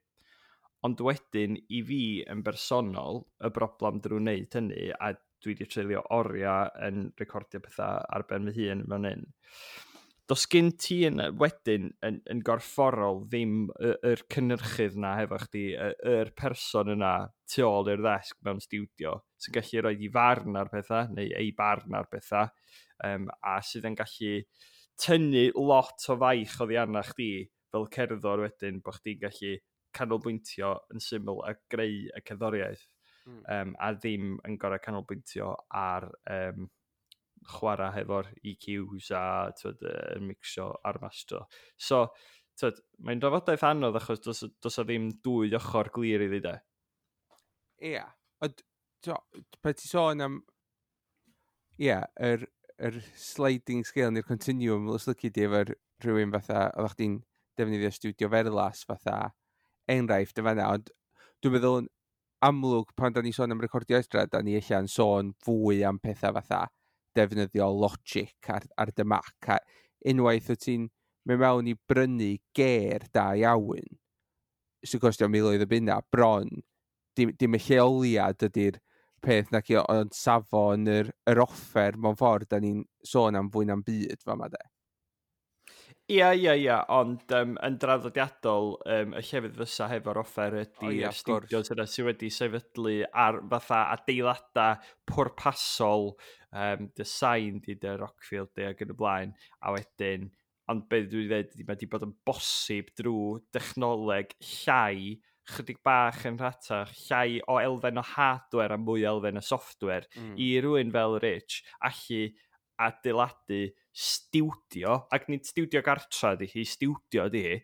Ond wedyn, i fi yn bersonol, y broblem drwy wneud hynny, a dwi wedi treulio oriau yn recordio pethau ar ben fy hun fan hyn, does gen ti yn, wedyn yn gorfforol ddim yr cynhyrchydd na hefo chdi, yr person yna tu ôl i'r ddesg mewn stiwdio sy'n gallu rhoi ei farn ar pethau, neu ei barn ar pethau, a sydd yn gallu tynnu lot o faich oddi arna chdi fel cerddor wedyn, bod chdi'n gallu canolbwyntio yn syml a greu y cerddoriaeth, a ddim yn gorau canolbwyntio ar chwarae hefo'r EQs a, t'wod, mixio a'r mastro. So, t'wod, mae'n drafodaeth anodd achos does o ddim dwy ochr glir iddi de. Ia, ond pan ti sôn am, ia, yr sliding scale neu'r continuum, os lici di efo'r rhywun fatha, oeddech chdi'n defnyddio Studio Ferlas fatha enghraifft y fanna, ond dwi'n meddwl yn amlwg pan da ni sôn am recordio adra, da ni ella'n sôn fwy am pethau fatha defnyddio Logic ar dy Mac, a unwaith wyt ti'n mynd mewn i brynu ger da iawn, sy'n costio miloedd o bunna, bron, dim y lleoliad ydy'r peth nac i, ond safon yr offer mewn ffordd da ni'n sôn am fwy na'n byd fama de. Ia, ond yn draddodiadol, y llefydd fysa hefo'r offer ydy O ia, yr wrth gwrs. studios yna sydd wedi sefydlu ar fatha adeiladau pwrpasol, design di dy Rockfield di ac yn y blaen, a wedyn, ond be dwi'n dweud ydy mae wedi bod yn bosib drwy dechnoleg llai, chydig bach yn rhatach, llai o elfen o hardware a mwy o elfen o software, i rywun fel Rich allu adeiladu stiwdio, ac nid stiwdio gartra ydi hi, stiwdio ydi hi,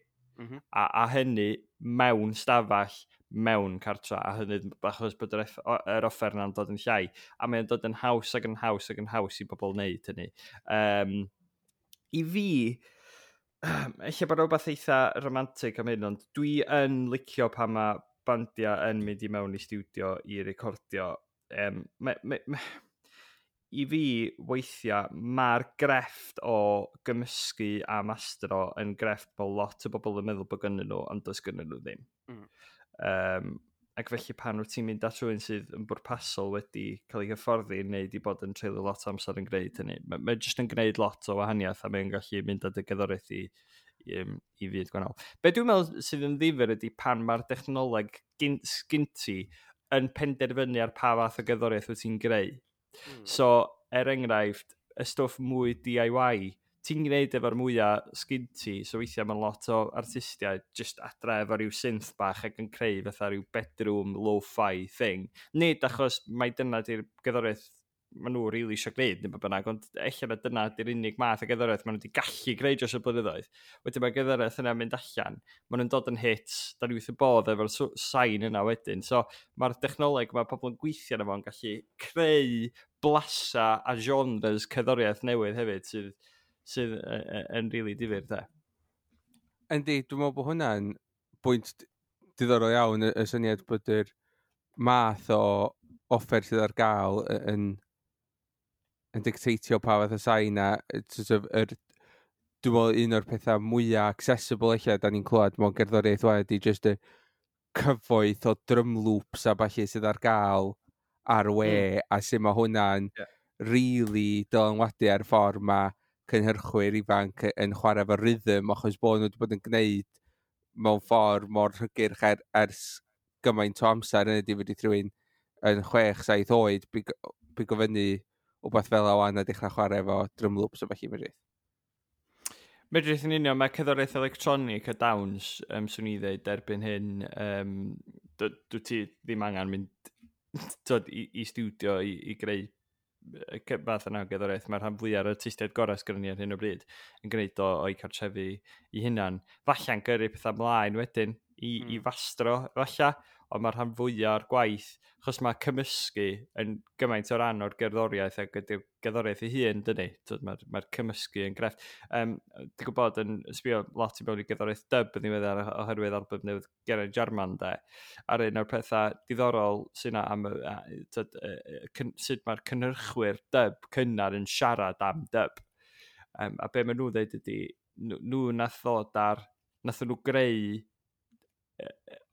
a hynny mewn stafell, mewn cartra, a hynny achos bod yr offer yna'n dod yn llai, a mae'n dod yn haws ac yn haws ac yn haws i bobl wneud hynny. I fi, ella bod rhywbeth eitha romantic am hyn, ond dwi yn licio pan mae bandiau yn mynd i mewn i stiwdio i recordio, i fi weithiau mae'r grefft o gymysgu a mastro yn grefft bod lot o bobl yn meddwl bod gynnyn nhw, ond does gynnyn nhw ddim. Ac felly pan wyt ti'n mynd at rhywun sydd yn bwrpasol wedi cael ei hyfforddi neu wedi bod yn treulio lot o amser yn gwneud hynny, mae jyst yn gwneud lot o wahaniaeth a mae'n gallu mynd â dy gerddoriaeth i fyd gwahanol. Be dwi'n meddwl sydd yn ddifyr ydy pan mae'r dechnoleg sgyn ti yn penderfynu ar pa fath o gerddoriaeth wyt ti'n greu. So, er enghraifft, y stwff mwy DIY, ti'n gwneud efo'r mwyaf sgyn ti, so weithiau mae lot o artistiaid just adra efo rhyw synth bach ac yn creu fatha rhyw bedroom lo-fi thing. Nid achos mai dyna di'r gerddoriaeth maen nhw rili eisiau gwneud neu beth bynnag, ond ella na dyna di'r unig math o gerddoriaeth maen nhw wedi gallu greu dros y blynyddoedd. Wedyn mae gerddoriaeth yna'n mynd allan, maen nhw'n dod yn hits, da ni wrth y bodd efo'r sain yna wedyn. So mae'r dechnoleg mae pobl yn gweithio arno fo'n gallu creu blasa a genres cerddoriaeth newydd hefyd sydd yn rili difyr, de. Yndi, dwi'n meddwl bod hwnna'n bwynt diddorol iawn, y syniad bod yr math o offer sydd ar gael yn dictatio pa fath o sain a sort of, dwi'n meddwl un o'r pethau mwyaf accessible eich da ni'n clywed mewn gerddoriaeth wan ydy just y cyfoeth o drum loops a ballu sydd ar gael ar y we a sut mae hwnna'n really dylanwadu ar ffordd mae cynhyrchwyr ifanc yn chwarae efo rhythm achos bod nhw wedi bod yn gwneud mewn ffordd mor hygyrch ers gymaint o amser yn ydy wedi rhywun yn 6, 7 oed bigo fyny wbeth fel o wan a dechrau chwarae efo drum loops o felly medrith. Medrith yn union, mae cerddoriaeth electronig a dawns, swn i ddeud erbyn hyn, dwi ti ddim angen mynd tyd, i studio i greu y fath yna o gerddoriaeth. Mae'r rhan fwyaf o'r artistiaid gorau sgynnon ni ar hyn o bryd yn gwneud o o'i cartrefi i hunan. Falle'n gyrru pethau ymlaen wedyn i fastro, falle, ond mae'r rhan fwyaf o'r gwaith, achos mae cymysgu yn gymaint o ran o'r gerddoriaeth ac ydy'r gerddoriaeth ei hun, dydy. Mae'r cymysgu yn grefft. Dwi'n gwybod yn sbio lot i mewn i gerddoriaeth dub yn ddiweddar oherwydd album newydd Geraint Jarman, de. A'r un o'r pethau diddorol sy'n yna am tyd, sut mae'r cynhyrchwyr dub cynnar yn siarad am dub. A be maen nhw'n dweud ydy, nhw nath ddod ar, nath nhw greu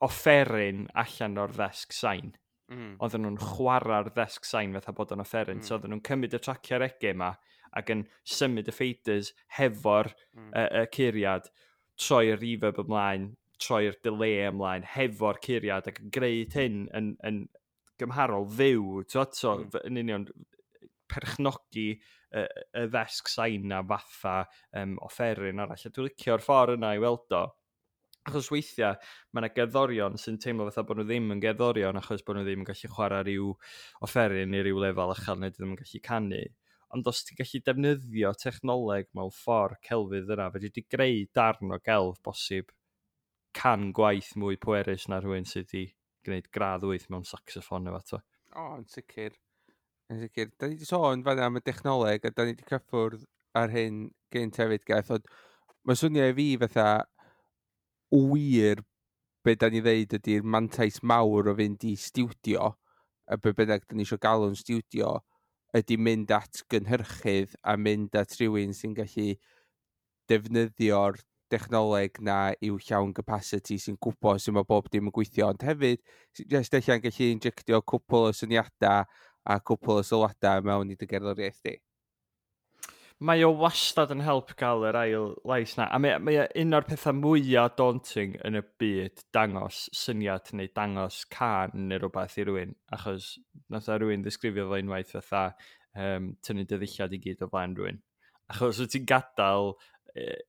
offeryn allan o'r ddesg sain. Oedden nhw'n chwarae'r ddesg sain fatha bod o'n offeryn. So oedden nhw'n cymryd y traciau reggae yma ac yn symud y faders hefo'r y curiad, troi'r reverb ymlaen, troi'r delay ymlaen hefo'r curiad ac yn gwneud hyn yn gymharol fyw. T'wod? So, yn union perchnogi y ddesg sain na fatha offeryn arall. A dwi'n licio'r ffordd yna i weld o. Achos weithiau mae yna gerddorion sy'n teimlo fatha bod nhw ddim yn gerddorion achos bod nhw ddim yn gallu chwarae rhyw offeryn i ryw lefel uchel neu ddim yn gallu canu. Ond os ti'n gallu defnyddio technoleg mewn ffordd celfydd yna, fedri di greu darn o gelf bosib 100 gwaith mwy pwerus na rhywun sydd wedi gwneud gradd 8 mewn saxoffon neu fath o. O, yn sicr. Yn sicr. Da ni wedi sôn fan'na am y dechnoleg a da ni wedi cyffwrdd ar hyn gynt hefyd, Geth, ond mae swnio i fi fatha wir be da ni ddeud ydy'r mantais mawr o fynd i stiwdio, a be bynnag da ni eisiau galw'n stiwdio, ydy mynd at gynhyrchydd a mynd at rhywun sy'n gallu defnyddio'r dechnoleg na i'w llawn capacity, sy'n gwybod sut mae bob dim yn gweithio, ond hefyd jyst ella'n gallu injectio cwpl o syniadau a cwpl o sylwadau mewn i dy gerddoriaeth di. Mae o wastad yn help gael yr ail lais na. A mae o un o'r pethau mwyaf daunting yn y byd dangos syniad neu dangos cân neu rhywbeth i rywun. Achos nath o rywun ddisgrifio fo unwaith fatha tynnu dy ddillad i gyd o flaen rhywun. Achos wyt ti'n gadael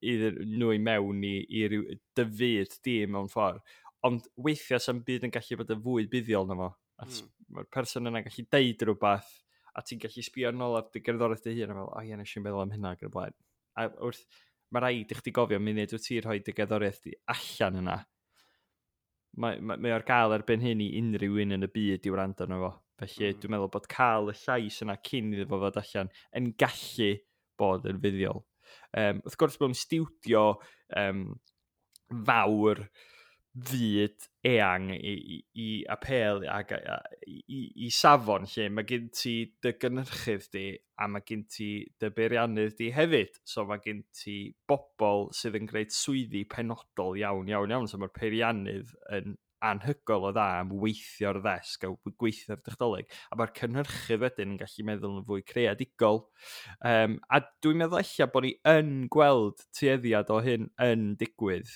iddyn nhw i mewn i ryw dy fyd di mewn ffordd. Ond weithiau sa'm byd yn gallu bod yn fwy buddiol na fo. Achos mae'r person yna'n gallu deud rhywbeth a ti'n gallu sbio nôl ar dy gerddoriaeth dy hun a fel, "O ie, nes i'n meddwl am hynna" ac yn y blaen. A wrth, mae rhaid i chdi gofio munud wyt ti'n rhoi dy gerddoriaeth di allan yna. Mae ar gael erbyn hyn i unrhyw un yn y byd i wrando arno fo. Felly dwi'n meddwl bod cael y llais yna cyn iddo fo fod allan yn gallu bod yn fuddiol. Wrth gwrs mewn stiwdio fawr, fyd eang i apêl ac i safon lle mae gen ti dy gynhyrchydd di a mae gen ti dy beiriannydd di hefyd. So mae gen ti bobl sydd yn gwneud swyddi penodol iawn, iawn, iawn. So mae'r peiriannydd yn anhygoel o dda am weithio'r ddesg a gweithio'r dechnoleg. A mae'r cynhyrchydd wedyn yn gallu meddwl yn fwy creadigol. A dwi'n meddwl ella bod ni yn gweld tueddiad o hyn yn digwydd.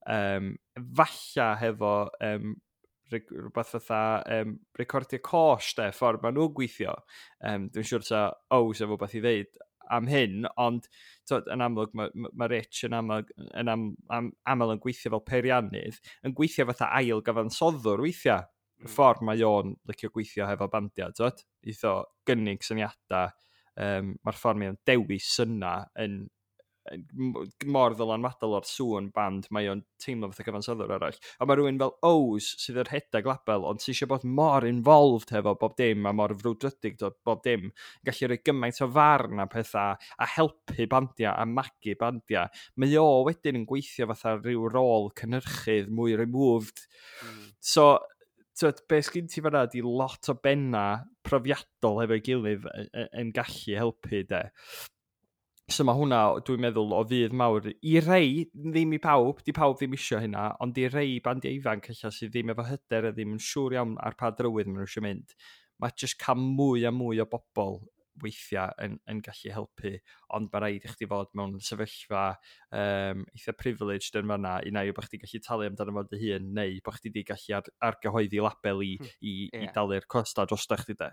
Falla hefo rhywbeth fatha Recordiau Côsh, de, ffordd maen nhw'n gweithio. Dwi'n siŵr ta Ows efo beth i ddeud am hyn, ond twod, yn amlwg mae Rich yn amlwg, yn aml yn gweithio fel peiriannydd, yn gweithio fatha ail gyfansoddwr weithiau. Y ffordd mae o'n licio gweithio hefo bandiau, twod, eitho gynnig syniadau, mae'r ffordd mae o'n dewis yna yn mor ddylanwadol o'r sŵn band, mae o'n teimlo fatha cyfansoddwr arall. A mae rhywun fel Ows sydd yn rhedeg label, ond sydd eisiau bod mor involved hefo bob dim a mor frwdfrydig dod bob dim, gallu rhoi gymaint o farn a pethau a helpu bandiau a magu bandiau. Mae o wedyn yn gweithio fatha rhyw rôl cynhyrchydd mwy removed. So, twyd, be sgyn ti fan'na 'di lot o benna profiadol hefo'i gilydd yn gallu helpu, de. So mae hwnna, dwi'n meddwl, o fudd mawr i rei, ddim i pawb, di pawb ddim isio hynna, ond i rei bandiau ifanc ella sydd ddim efo hyder a ddim yn siŵr iawn ar pa drywydd maen nhw eisiau mynd. Mae jyst cael mwy a mwy o bobl weithiau yn gallu helpu, ond mae rhaid i chdi fod mewn sefyllfa eitha privileged yn fanna, un ai bod chdi gallu talu amdano fo dy hun, neu bod chdi di gallu argyhoeddi label i dalu'r costa drosta chdi, de.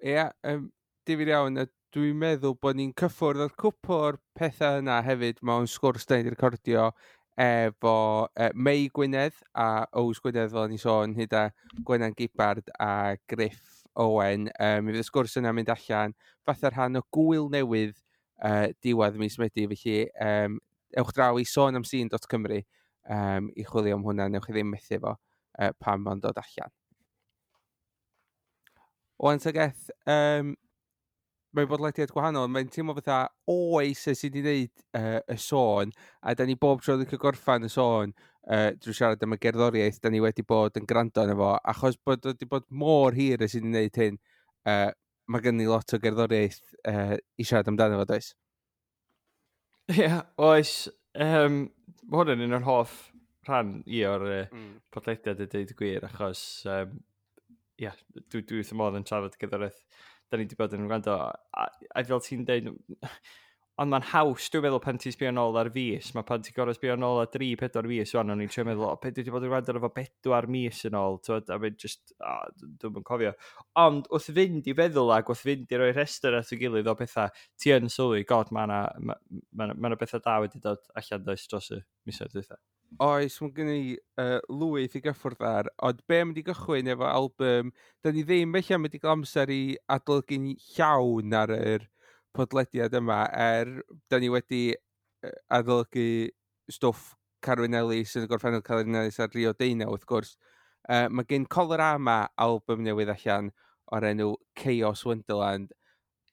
Ie, yeah, difyr iawn, a dwi'n meddwl bod ni'n cyffwrdd o'r cwpl o'r pethau yna hefyd mewn sgwrs da ni wedi recordio efo Mei Gwynedd a Ows Gwynedd, fel o'n i sôn, hyd a Gwenan Gibbard a Griff Owen. Mi fydd y sgwrs yna mynd allan fatha rhan o gwyl newydd diwedd mis Medi, felly ewch draw i sonamsîn.cymru i chwilio am hwnna, newch chi ddim methu fo pan ma'n dod allan. Wan ta Geth, mae'n bodlediad gwahanol, mae'n teimlo fatha oes ers i ni wneud y sôn, a da ni bob tro wedi cael gorffan y sôn drwy siarad am y gerddoriaeth da ni wedi bod yn gwrando arno fo, achos bod wedi bod mor hir ers i ni wneud hyn, mae gen ni lot o gerddoriaeth i siarad amdano fo, does? Ie, yeah, oes. Mae hwn yn un o'r hoff rhan i o'r podlediad i dweud y gwir, achos yeah, dwi wrth y modd yn trafod gerddoriaeth da ni wedi bod yn gwrando, a fel ti'n deud, ond mae'n haws, dwi'n meddwl, pan ti'n sbio nôl ar fis, mae pan ti'n gorfod sbio nôl ar 3-4 fis, wan, o'n i'n trio meddwl, o, be dwi wedi bod yn gwrando ar efo 4 mis yn ôl, twyd, a mae'n just, o, dwi'm yn cofio. Ond wrth fynd i feddwl ac wrth fynd i roi rhestr at ei gilydd o bethau, ti yn sylwi, god, mae yna ma, ma bethau da wedi dod allan, does, dros y misoedd dwytha. Oes, mae gen i lwyth i gyffwrdd ar, ond be am wedi gychwyn efo album, da ni ddim felly am wedi cael amser i adolygu'n llawn ar yr podlediad yma, er da ni wedi adolygu stwff Carwyn Ellis yn y gorffennol, Carwyn Ellis ar Rio Deunaw, wrth gwrs. Mae gen Colorama album newydd allan o'r enw Chaos Wonderland.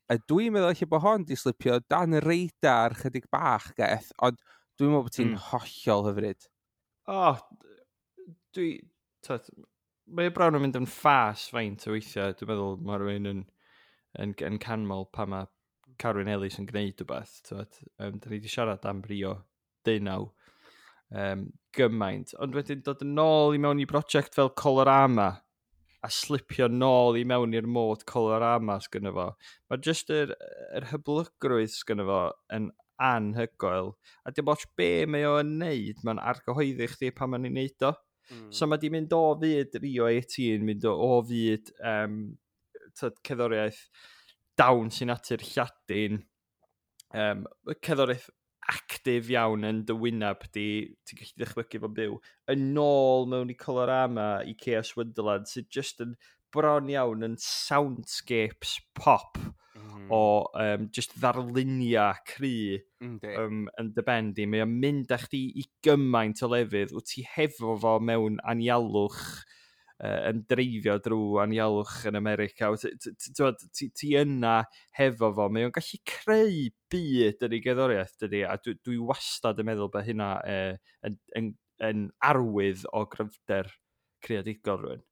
A dwi'n meddwl eich bod hon di slipio dan y radar chydig bach, Geth, ond dwi'n meddwl bod ti'n hollol hyfryd. O, oh, dwi... Twyd, mae bron yn mynd yn ffas faint o weithiau. Dwi'n meddwl mae rhywun yn canmol pa mae Carwyn Ellis yn gwneud rhywbeth. Twyd, da ni wedi siarad am Rio Deunaw gymaint. Ond wedyn dod yn ôl i mewn i brosiect fel Colorama a slipio nôl i mewn i'r mod Colorama sgynno fo. Mae jyst yr hyblygrwydd sgynno fo yn anhygoel. A dim ots be mae o'n neud, mae'n argyhoeddi chdi pan mae'n ei neud o. So mae di mynd o fyd Rio 18, mynd o fyd tyd, cerddoriaeth dawns i natur Lladin, cerddoriaeth actif iawn yn dy wyneb di, ti'n gallu dychmygu fo'n byw, yn ôl mewn i Colorama i Chaos Wonderland, sydd just yn bron iawn yn soundscapes pop o just ddarluniau cry yn dy ben di. Mae o'n mynd â chdi i gymaint o lefydd, wyt ti hefo fo mewn anialwch, yn dreifio drwy anialwch yn America. Wyt ti yna hefo fo. Mae o'n gallu creu byd yn ei gerddoriaeth, dydy, a dwi wastad yn meddwl bod hynna yn yn arwydd o gryfder creadigol rhywun.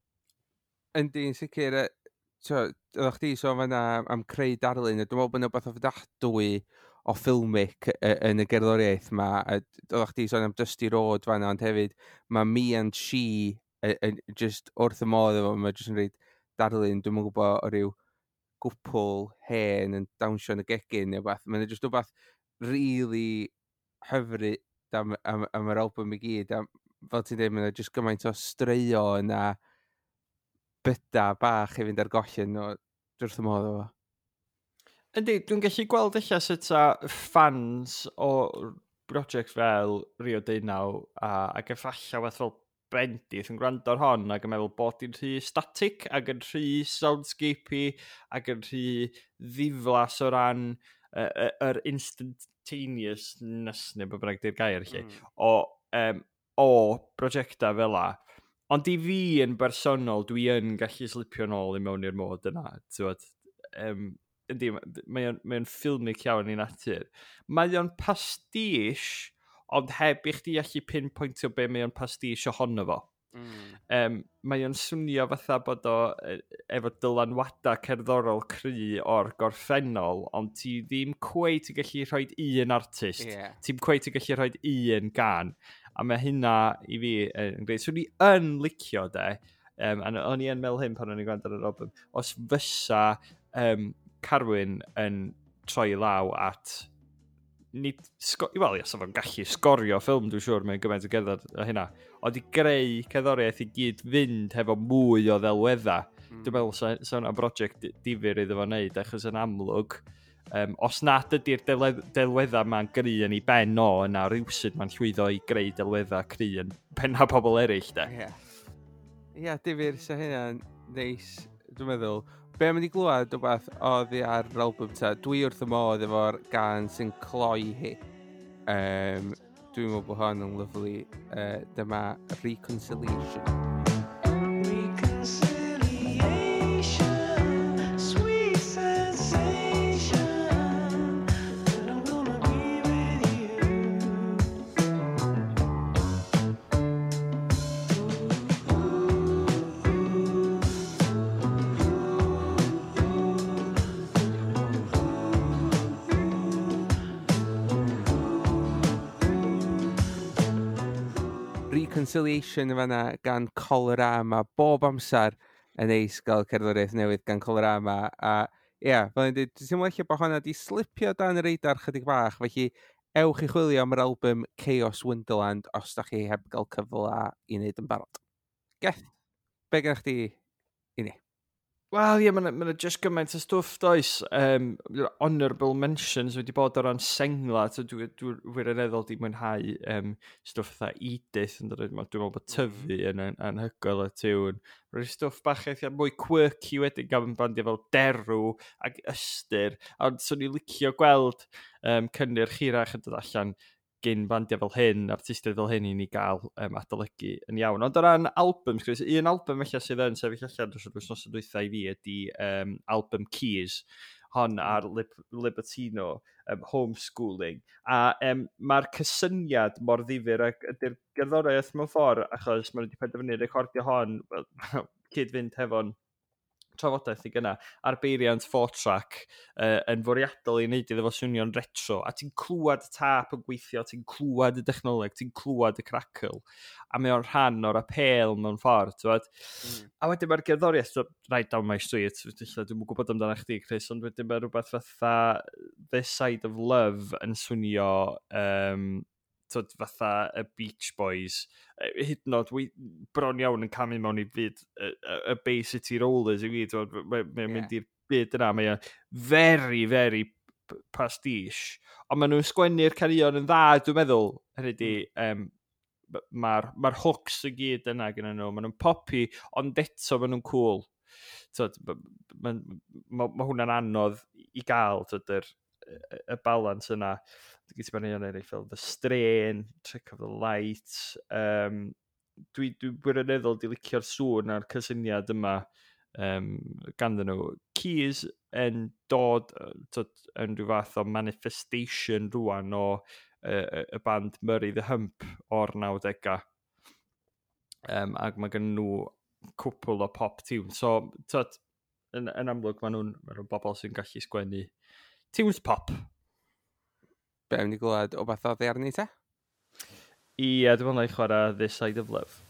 Yndi, yn sicr, oeddech chdi sôn fan'na am creu darlun, a dwi'n meddwl bod yna wbath ofnadwy o filmic yn y gerddoriaeth ma. Oeddech chdi sôn am Dusty Road fan'na, ond hefyd mae Me and She just wrth y modd efo, mae just yn rhaid darlun, dwi'm yn gwybod, o ryw gwpl hen yn dawnsio yn y gegin neu wbath. Mae'n just wbath really hyfryd am yr album i gyd. A fel ti'n dweud, mae'n just gymaint o straeon a byda bach i fynd ar goll yn o wrth y modd efo. Yndi, dwi'n gallu gweld eich sut a fans o brosiect fel Rio Deunaw ac efallai fath fel Bendith yn gwrando ar hon ac yn meddwl bod hi'n rhy static ac yn rhy soundscapey ac yn rhy ddiflas o ran yr instantaneousness neu be bynnag di'r gair lle, o brosiectau fel la. Ond i fi yn bersonol, dwi yn gallu slipio nôl i mewn i'r mod yna. T'wod, yndi, mae o'n filmic iawn i natur. Mae o'n pastiche, ond heb i chdi allu pinpointio be mae o'n pastiche ohono fo. Mae o'n swnio fatha bod o efo dylanwadau cerddorol cry o'r gorffennol, ond ti ddim cweit yn gallu rhoi un artist. Ti'n cweit yn gallu rhoi un gan. A mae hynna i fi yn greu. Swn i yn licio de, a o'n i yn meddwl hyn pan o'n i'n gwrando ar yr album, os fysa Carwyn yn troi law at nid, wel, ia, sa fo'n gallu sgorio ffilm, dwi'n siŵr, mae'n gymaint o gerdded a hynna, ond i greu cerddoriaeth i gyd fynd hefo mwy o ddelweddau. Dwi'n meddwl sa hwnna'n brosiect difyr iddo fo wneud, achos yn amlwg, os nad ydy'r delweddau ma'n gry yn ei ben o, yna rhywsut mae'n llwyddo i greu delweddau cry yn penna pobl eraill, de. Ie. Ie, difyr, sa hynna'n neis, dwi'n meddwl. Be am i glywed wbath oddi ar yr album ta, dwi wrth y modd efo'r gan sy'n cloi hi. Dwi'n meddwl bod hon yn lyfli. Dyma Reconciliation. Reconciliation, sweet sensation, that I'm gonna be with you. Reconciliation yn fanna gan Colorama, bob amser yn neis gael cerddoriaeth newydd gan Colorama. A ie, yeah, fel ni'n dweud, dwi'n teimlo ella bod hwnna di slipio dan y radar chydig bach, felly ewch i chwilio am yr album Chaos Wonderland os da chi heb gael cyfle i wneud yn barod. Geth, be gennych chdi i ni? Wel, ie, mae'n ma just gymaint o stwff, does? Honourable mentions wedi bod o ran sengla, so dwi wirioneddol di mwynhau stwff fatha Edith, yn dod, dwi'n meddwl bod Tyfu yn anhygoel y tiwn. Rwy'n stwff bach eitha mwy quirky wedyn gan bandiau fel Derw ac Ystyr, ond swn i licio gweld cynnyrch hirach yn dod allan gyn bandiau fel hyn, artistiaid fel hyn i ni gael adolygu yn iawn. Ond o ran albums, Chris, un album felly sydd yn sefyll allan dros yr wythnos dwytha i fi ydy album Keys, hon ar Libertino, Homeschooling. A mae'r cysyniad mor ddifyr ac ydy'r gerddoriaeth mewn ffordd, achos maen nhw wedi penderfynu recordio hon, wel, cyd-fynd hefo'n trafodaeth i gynna, ar beiriant 4-track yn fwriadol i wneud iddo fo swnio'n retro, a ti'n clywed y tap yn gweithio, ti'n clywed y dechnoleg, ti'n clywed y crackle, a mae o'n rhan o'r apêl mewn ffordd, ti'n A wedyn mae'r gerddoriaeth, so, Right Down My Street, ella dwi'm yn gwybod amdano chdi, Chris, ond wedyn mae rhywbeth fatha This Side of Love yn swnio twyd, fatha y Beach Boys, hyd yn oed, bron iawn yn camu mewn i fyd y Bay City Rollers i fi, twyd, mae'n mynd i'r byd yna, mae o'n very, very pastiche, ond maen nhw'n sgwennu'r caneuon yn dda, dwi'n meddwl, hynny di, mae'r ma hooks i gyd yna gyda nhw, maen nhw'n poppy, ond eto maen nhw'n cool. Twyd, ma hwnna'n anodd i gael, twyd, y balance yna. Dwi'n gyda ni eraill fel The Strain, Trick of the Light. Dwi wirioneddol di licio'r sŵn a'r cysyniad yma ganddyn nhw. Keys yn dod twyd, yn rhyw fath o manifestation rwan o y band Murray the Hump o'r 90au. Ac mae gen nhw cwpl o pop tunes. So, tyd, yn amlwg, maen nhw bobl sy'n gallu sgwennu tunes pop. Be am ni glywed o beth oddi arni te? Ie, dwi'n meddwl na i chwarae This Side of Love.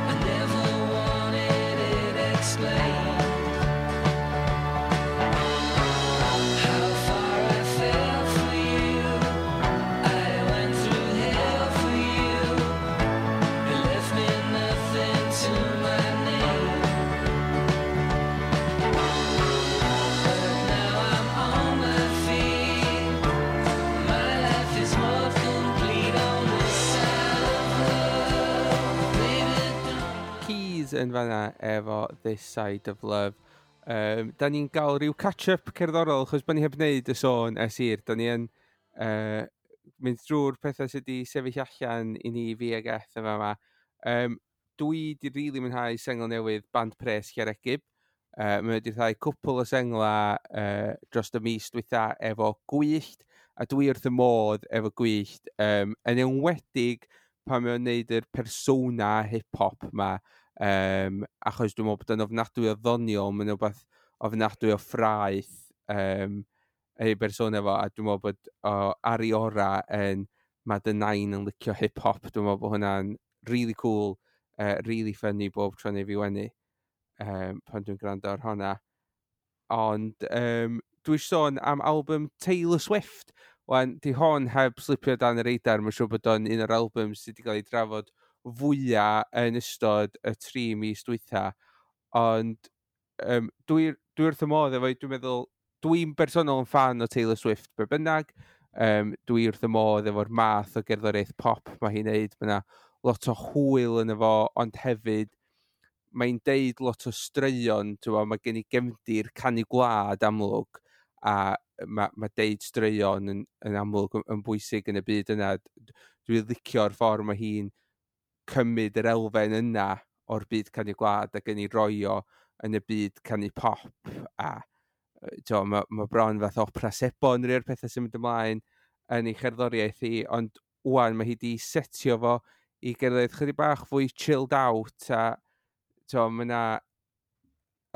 I never wanted it explained how far I fell for you. I went through hell for you. It left me nothing to my name. But now I'm on my feet. My life is more complete on this side of love. Baby, don't. Keys yn fanna efo This Side of Love. Da ni'n gael rhyw catch-up cerddorol, achos bod ni heb wneud y sôn ers hir. Da ni yn mynd drwy'r pethau sydd wedi sefyll allan i ni, fi ag Eth yma yma. Dwi di rili really mwynhau sengl newydd Band Pres Llareggub. Mae wedi rhyddhau cwpl o sengla dros y mis dwytha efo Gwyllt, a dwi wrth y modd efo Gwyllt. Yn enwedig pan mae o'n neud yr persona hip-hop ma, achos dwi'n meddwl bod o'n ofnadwy o ddoniol, mae'n rhywbeth ofnadwy o ffraeth ei bersona fo, a dwi'n meddwl bod o ar ei ora yn mae dy nain yn licio hip-hop. Dwi'n meddwl bod hwnna'n really cool, really funny bob tro neu fi wenu pan dwi'n gwrando ar hwnna. Ond dwi eisiau sôn am album Taylor Swift. Wan, di hon heb slipio dan y radar, mae'n siŵr bod o'n un o'r albums sydd wedi cael ei drafod fwyaf yn ystod y 3 mis dwytha. Ond dwi wrth y modd efo, dwi'n meddwl, dwi'n bersonol yn fan o Taylor Swift be bynnag. Dwi wrth y modd efo'r math o gerddoriaeth pop mae hi'n neud. Mae yna lot o hwyl yn efo, ond hefyd mae'n deud lot o straeon, ti'n gwbod, mae gen i gefndir canu gwlad amlwg, a mae deud straeon yn amlwg yn bwysig yn y byd yna. Dwi'n licio'r ffordd mae hi'n cymryd yr elfen yna o'r byd canu gwlad ac yn ei roi o yn y byd canu pop a t'mo, mae bron fath opera sebon rhai o'r pethau sy'n mynd ymlaen yn ei cherddoriaeth hi, ond wan mae hi di setio fo i gerddoriaeth chydig bach fwy chilled out a t'mo, mae yna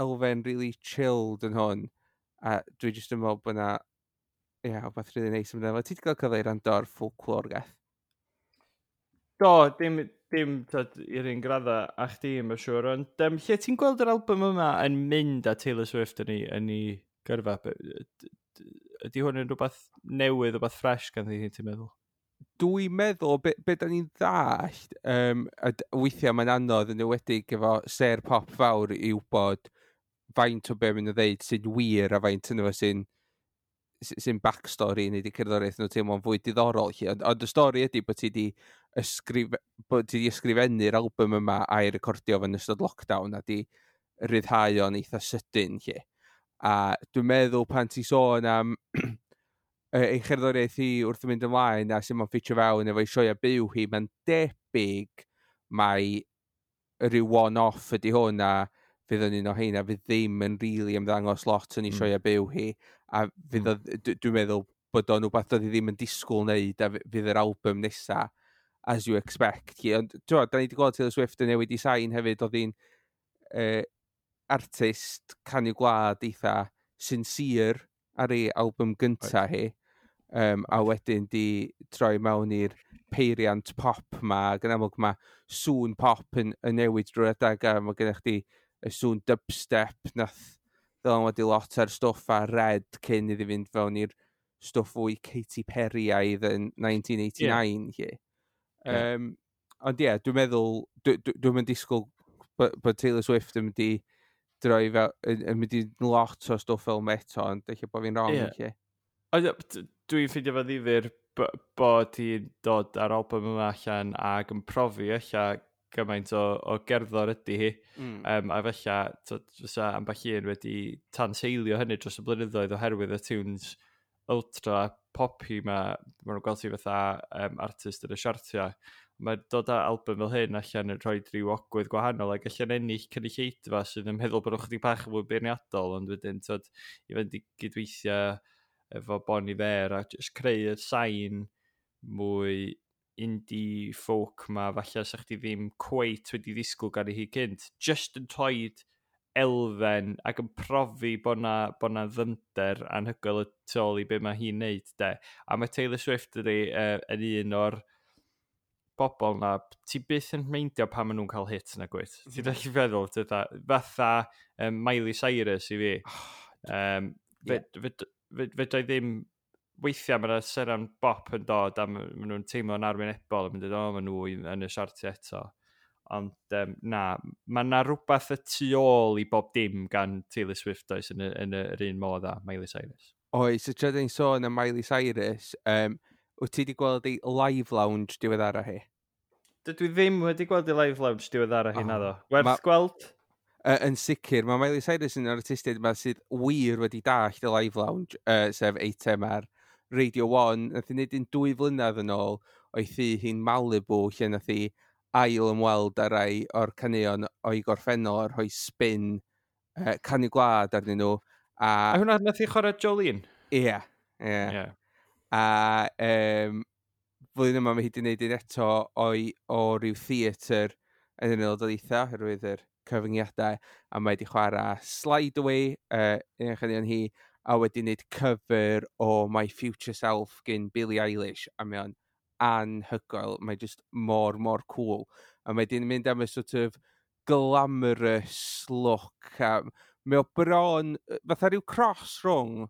elfen really chilled yn hwn a dwi jyst yn meddwl bod yna, ie, yeah, wbeth really neis amdano fo. Ti wedi cael cyfle i wrando ar Folklore, Geth? Do, dim tyd, i'r un gradda a chdi, mae'n siŵr. Ond lle ti'n gweld yr album yma yn mynd â Taylor Swift yn ei gyrfa? Ydy hwn yn rhywbeth newydd, rhywbeth ffres gan ddi, ti'n meddwl? Dwi'n meddwl, be da ni'n ddallt, a weithiau mae'n anodd yn enwedig efo ser pop fawr i wybod faint o be maen nhw'n ddeud sy'n wir a faint yno fo sy'n backstory neu di cerddoriaeth nhw teimlo'n fwy diddorol. Lly. Ond y stori ydy bod ti di ysgrifennu'r album yma a'i recordio fo'n ystod lockdown a di ryddhau o'n eitha sydyn. Lly. A dwi'n meddwl pan ti sôn am ei cherddoriaeth hi wrth mynd ymlaen a sut mae'n ffitio fewn efo'i sioea byw hi, mae'n debyg mai rhyw one-off ydy hwn a fydd yn un o heina fydd ddim yn rili really ymddangos lot yn ei sioea byw hi a fydd o, dwi'n meddwl bod o'n rhywbeth doedd hi ddim yn disgwyl wneud a fydd yr album nesa as you expect. Hi. Ond ti'n da ni wedi gweld Taylor Swift yn newid i sain hefyd, oedd hi'n artist canu gwlad eitha sincere ar ei album gynta hi. A wedyn di troi mewn i'r peiriant pop ma, ac yn amlwg mae sŵn pop yn newid drwy'r adeg, a mae gennych chdi y sŵn dubstep nath ddylanwadu lot ar stwff ar Red cyn iddi fynd fewn i'r stwff fwy Katy Perry-aidd yn 1989. Yeah. Ond ie, yeah, dwi'n meddwl, dwi'n mynd disgwyl bod Taylor Swift yn mynd i droi fel, yn mynd i lot o stwff fel eto, ond eich bod fi'n wrong. Ie. Ond, ie, dwi'n ffeindio fo ddifyr bod hi'n dod ar album yma allan ac yn profi ella gymaint o gerddor ydy hi. A fella, t'od, fysa ambell un wedi tanseilio hynny dros y blynyddoedd oherwydd y tunes ultra poppy ma, maen nhw'n gweld ti fatha artist yn y siartiau. Mae dod â album fel hyn allan yn rhoi rhyw ogwydd gwahanol ac allan ennill cynulleidfa sydd yn meddwl bod nhw chydig bach yn fwy beirniadol, ond wedyn tod, i fynd i gydweithio efo Bon Iver, a just creu y sain mwy indie folk ma, falle sa chdi ddim cweit wedi ddisgwyl gan i hi cynt. Just yn toed elfen ac yn profi bod na ddyfnder anhygoel y tu ôl i be mae hi'n neud, de. A mae Taylor Swift ydi yn un o'r bobl na, ti byth yn meindio pan maen nhw'n cael hit na gwyt. Ti'n gallu feddwl, fatha, fatha Miley Cyrus i fi. Fedra i ddim, weithiau mae yna seren bop yn dod a ma' nhw'n teimlo'n arwynebol a mynd, "O, maen nhw yn y siartiau eto." Ond na, mae yna rhywbeth y tu ôl i bob dim gan Taylor Swift oes yn yr un modd â Miley Cyrus. Oes, y tra ni'n sôn am Miley Cyrus, wyt ti wedi gweld ei live lounge diweddara hi? Dydw i ddim wedi gweld ei live lounge diweddara hi, naddo. Werth gweld? Yn sicr, mae Miley Cyrus yn artistiaid yma sydd wir wedi dallt y live lounge, sef eitem ar Radio 1. Nath hi wneud un 2 flynedd yn ôl o'i thŷ hi'n Malibu, lle nath hi ail ymweld â rai o'r caneuon o'i gorffennol a rhoi spin canu gwlad arnyn nhw. A hwnna nath hi chwarae Jolene? Ie. A flwyddyn yma mae hi wedi gwneud un eto o ryw theatr yn yr Unol Daleithiau, oherwydd yr cyfyngiadau, a mae wedi chwarae Slide Away, un o'r chaneuon hi, a wedi gwneud cover o My Future Self gyn Billie Eilish, a mae o'n anhygoel, mae just mor, mor cool. A mae wedi mynd am y sort of glamorous look, a mae o bron, fatha rhyw cross rhwng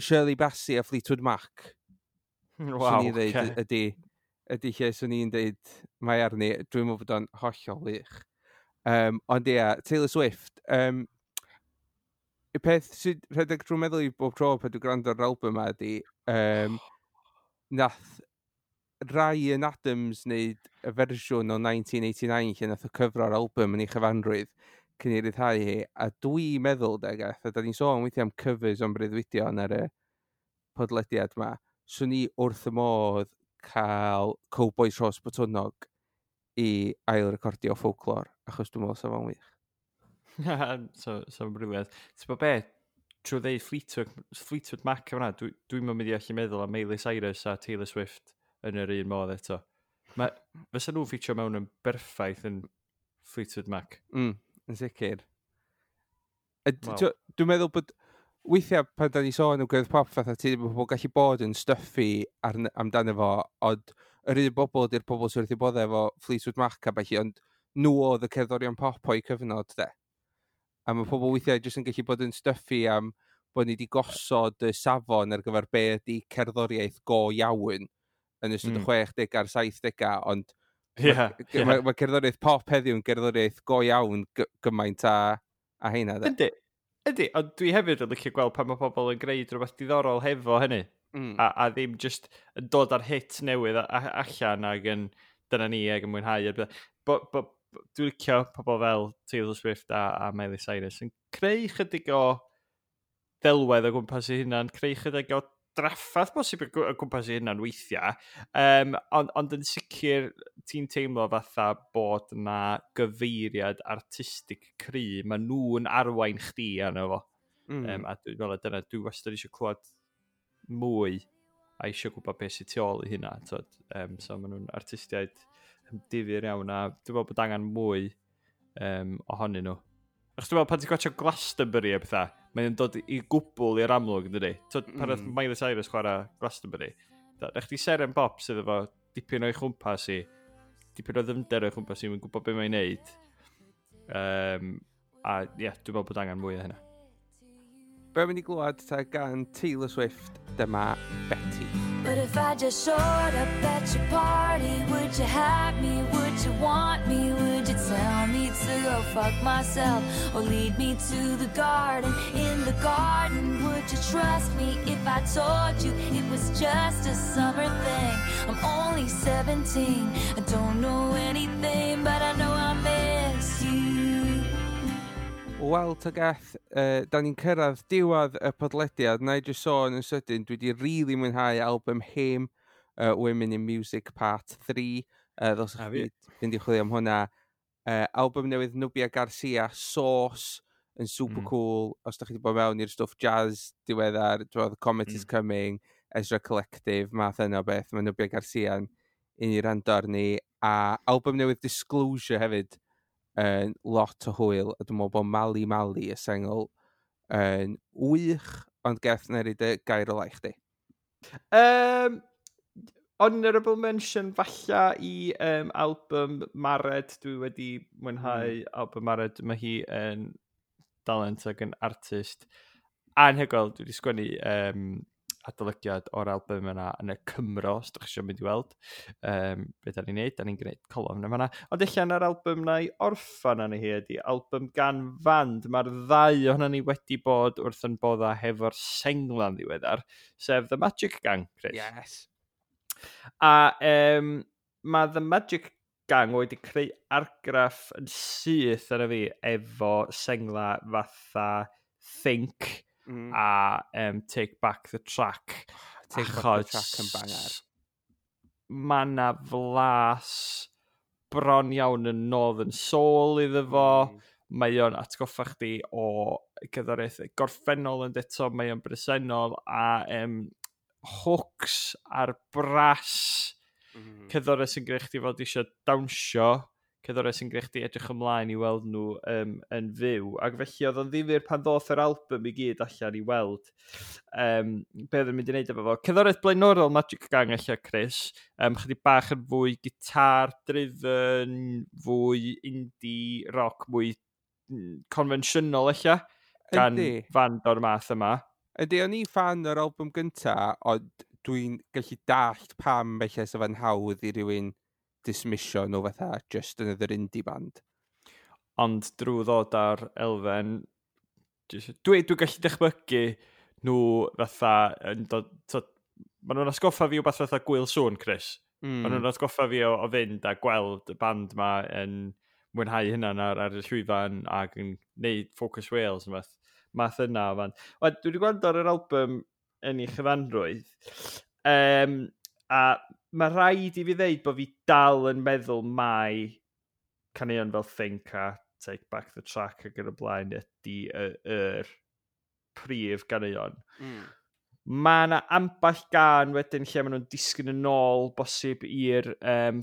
Shirley Bassey a Fleetwood Mac. Swn i'n dweud ydy lle swn i'n dweud mae arni. Dwi'n meddwl bod o'n hollol wych. Ond ia, Taylor Swift, y peth sydd rhedeg drwy meddwl i bob tro pan dwi'n gwrando ar album yma ydy, nath Ryan Adams wneud y fersiwn o 1989 lle nath o cyfro'r album yn ei chyfanrwydd cyn i ryddhau hi, a dwi'n meddwl, de, gath, a da ni'n sôn weithiau am covers o'n breuddwydion ar y podlediad ma, swn i wrth y modd cael Cowbois Rhos Botwnnog i ail-recordio Folklore, achos dwi'n meddwl sa fo'n wych. So brilliant. Ti'n bod be, trwy ddeud Fleetwood Mac yma, dwi'n mynd i allu meddwl am Miley Cyrus a Taylor Swift yn yr un modd eto. Mae, fysa nhw'n ffitio mewn yn berffaith yn Fleetwood Mac. Yn sicr. Dwi'n meddwl bod weithiau pan da ni sôn am gerdd pop fatha ti, bod pobl gallu bod yn stuffy amdano fo, ond yr un bobl ydy'r pobl sydd wrth eu boddau efo Fleetwood Mac a ballu, ond nhw oedd y cerddorion pop o'i cyfnod, de. A mae pobl weithiau jyst yn gallu bod yn stuffy am bod ni wedi gosod y safon ar gyfer be ydy cerddoriaeth go iawn yn ystod y 60 a'r 70au, ond mae cerddoriaeth pop heddiw yn gerddoriaeth go iawn gymaint a heina, de. Yndi, ond dwi hefyd yn licio gweld pan mae pobl yn gwneud rhywbeth diddorol hefo hynny. A ddim just yn dod ar hit newydd allan ac yn dyna ni ac yn mwynhau. A beth. Bo dwi'n licio pobl fel Taylor Swift a Miley Cyrus yn creu chydig o ddelwedd o gwmpas ei hunan, creu chydig o draffath bosib o gwmpas ei hunan weithiau. Ond yn sicr ti'n teimlo fatha bod na gyfeiriad artistig cry, mae nhw'n arwain chdi arno fo. A dwi'n meddwl dyna, dwi wastad eisiau clywed mwy a eisiau gwybod beth sydd tu ôl i hynna. T'od? So maen nhw'n artistiaid difyr iawn a dwi'n meddwl bod angen mwy ohonyn nhw. Achos dwi'n meddwl pan ti'n gwatchio Glastonbury a pethau, mae'n dod i gwbl i'r amlwg, yn dydi? T'od, pan oedd Miley Cyrus chwarae Glastonbury, da chdi seren bop sydd efo dipyn o'i chwmpas i, dipyn o ddyfnder o'i chwmpas i, mae'n gwybod beth mae'n neud. A ie, yeah, dwi'n meddwl bod angen mwy o hynna. Be mynd i glwad ta gan Taylor Swift, dyma Betty. But if I just showed up at your party, would you have me? Would you want me? Would you tell me to go fuck myself? Or lead me to the garden? In the garden, would you trust me if I told you it was just a summer thing? I'm only 17, I don't know anything, but I know I miss you. Wel, Tygeth, da ni'n cyrraedd diwedd y podlediad. Na i jyst sôn yn sydyn, dwi wedi really mwynhau album Haim, Women in Music Part 3. Ddylsech A fi. chi fynd i chwilio am hwnna. Album newydd Nubya Garcia, Sauce. yn super cool. Os da chi wedi bod mewn i'r stwff jazz diweddar, dwi'n The Comet is Coming, Ezra Collective, math yna o beth, mae Nubia Garcia'n un i rando arni. A album newydd Disclosure hefyd yn lot o hwyl, a dwi'n meddwl bod Mali Mali y sengl yn wych, ond Geth, na i dy gair ola i chdi. Honourable mention falla i album Mared. Dwi wedi mwynhau album Mared. Mae hi yn dalent ac yn artist anhygoel. Dwi wedi sgwennu adolygiad o'r album yna yn y Cymro, os ydych chi eisiau mynd i weld be da ni'n neud. Da ni'n gwneud colofn yma. Ond allan ar album na i orffan arni hi ydy album gan fand. Mae'r ddau ohono ni wedi bod wrth yn bodda hefo'r sengla'n ddiweddar, sef The Magic Gang, Chris. Yes. A mae The Magic Gang wedi creu argraff yn syth arna fi efo sengla fatha Think a Take Back the Track. Take Back the Track yn banger. Mae na flas bron iawn yn Northern Soul iddo fo. Mae o'n atgoffa chdi o gerddoriaeth gorffennol yn eto, mae o'n bresennol a hooks a'r brass, cerddoriaeth sy'n gwneud chdi fod eisiau dawnsio, cerddoriaeth sy'n gwneud chdi edrych ymlaen i weld nhw yn fyw. Ac felly oedd o'n ddifyr pan ddoth yr album i gyd allan i weld be oedd yn mynd i wneud efo fo. Cerddoriaeth blaenorol Magic Gang allan, Chris, chydig bach yn fwy guitar driven, fwy indie rock, mwy confensiynol allan, gan fand o'r math yma. Ydy, o'n i fan o'r album gynta, ond dwi'n gallu dallt pam felly sa fe'n hawdd i rywun dismissio nhw fatha just another indie band. Ond drwy ddod ar elfen, dwi gallu dychmygu nhw fatha yn dod, maen nhw'n atgoffa fi o beth fatha Gwyl Sŵn, Chris. Maen nhw'n atgoffa fi o fynd a gweld y band ma yn mwynhau hynna ar y llwyfan ac yn neud Focus Wales yn math yna o fan. Wel, dwi wedi gwrando ar yr album yn ei chyfanrwydd. A mae rhaid i fi ddeud bod fi dal yn meddwl mai caneuon fel Think a Take Back the Track ac yn y blaen ydy yr prif ganeuon. Mae yna ambell gan wedyn lle maen nhw'n disgyn yn ôl bosib i'r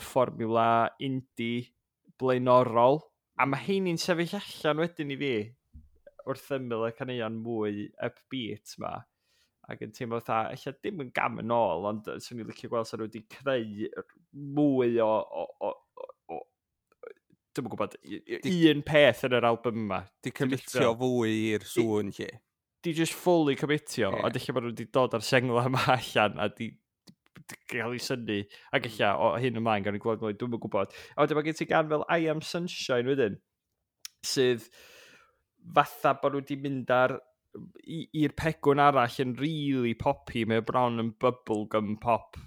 fformiwla indie blaenorol. A mae heini'n sefyll allan wedyn i fi wrth ymyl y caneuon mwy upbeat ma. Ac yn teimlo fatha, ella dim yn gam yn ôl, ond swn i'n licio gweld sa nhw wedi creu mwy o dwi'm yn gwybod, un peth yn yr album yma. Di commitio fwy i'r sŵn lle. Di just fully commitio, ond ella bod nhw wedi dod ar sengla yma allan a di gael ei synnu. Ac ella o hyn ymlaen gawn ni gweld mwy, dwi'm yn gwybod. A wedyn mae gen ti gan fel I Am Sunshine wedyn, sydd fatha bod nhw wedi mynd i'r pegwn arall yn really poppy, mae o bron yn bubblegum pop,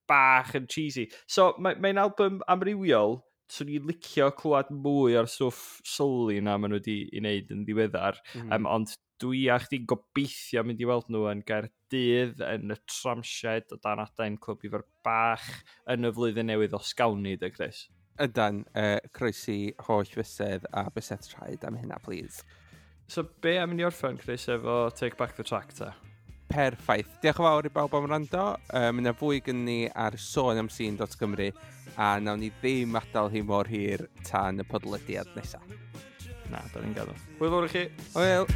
bach yn cheesy. So mae'n album amrywiol, swn i'n licio clywed mwy o'r stwff soul na maen nhw wedi i wneud yn ddiweddar, ond dwi a chdi gobeithio mynd i weld nhw yn Gaerdydd, yn y Tramshed o dan adain Clwb Ifor Bach yn y flwyddyn newydd os gawn ni, de, Chris? Ydan, croesi holl fysedd a bysedd traed am hynna, please. So be am i ni orffen, Chris, efo Take Back the Track, ta? Perffaith. Diolch yn fawr i bawb am wrando. Mae yna fwy gen ni ar sonamscene.cymru a nawn ni ddim adael hi mor hir tan y podlediad nesaf. Na, da ni'n gadael. Hwyl fawr i chi. Hwyl.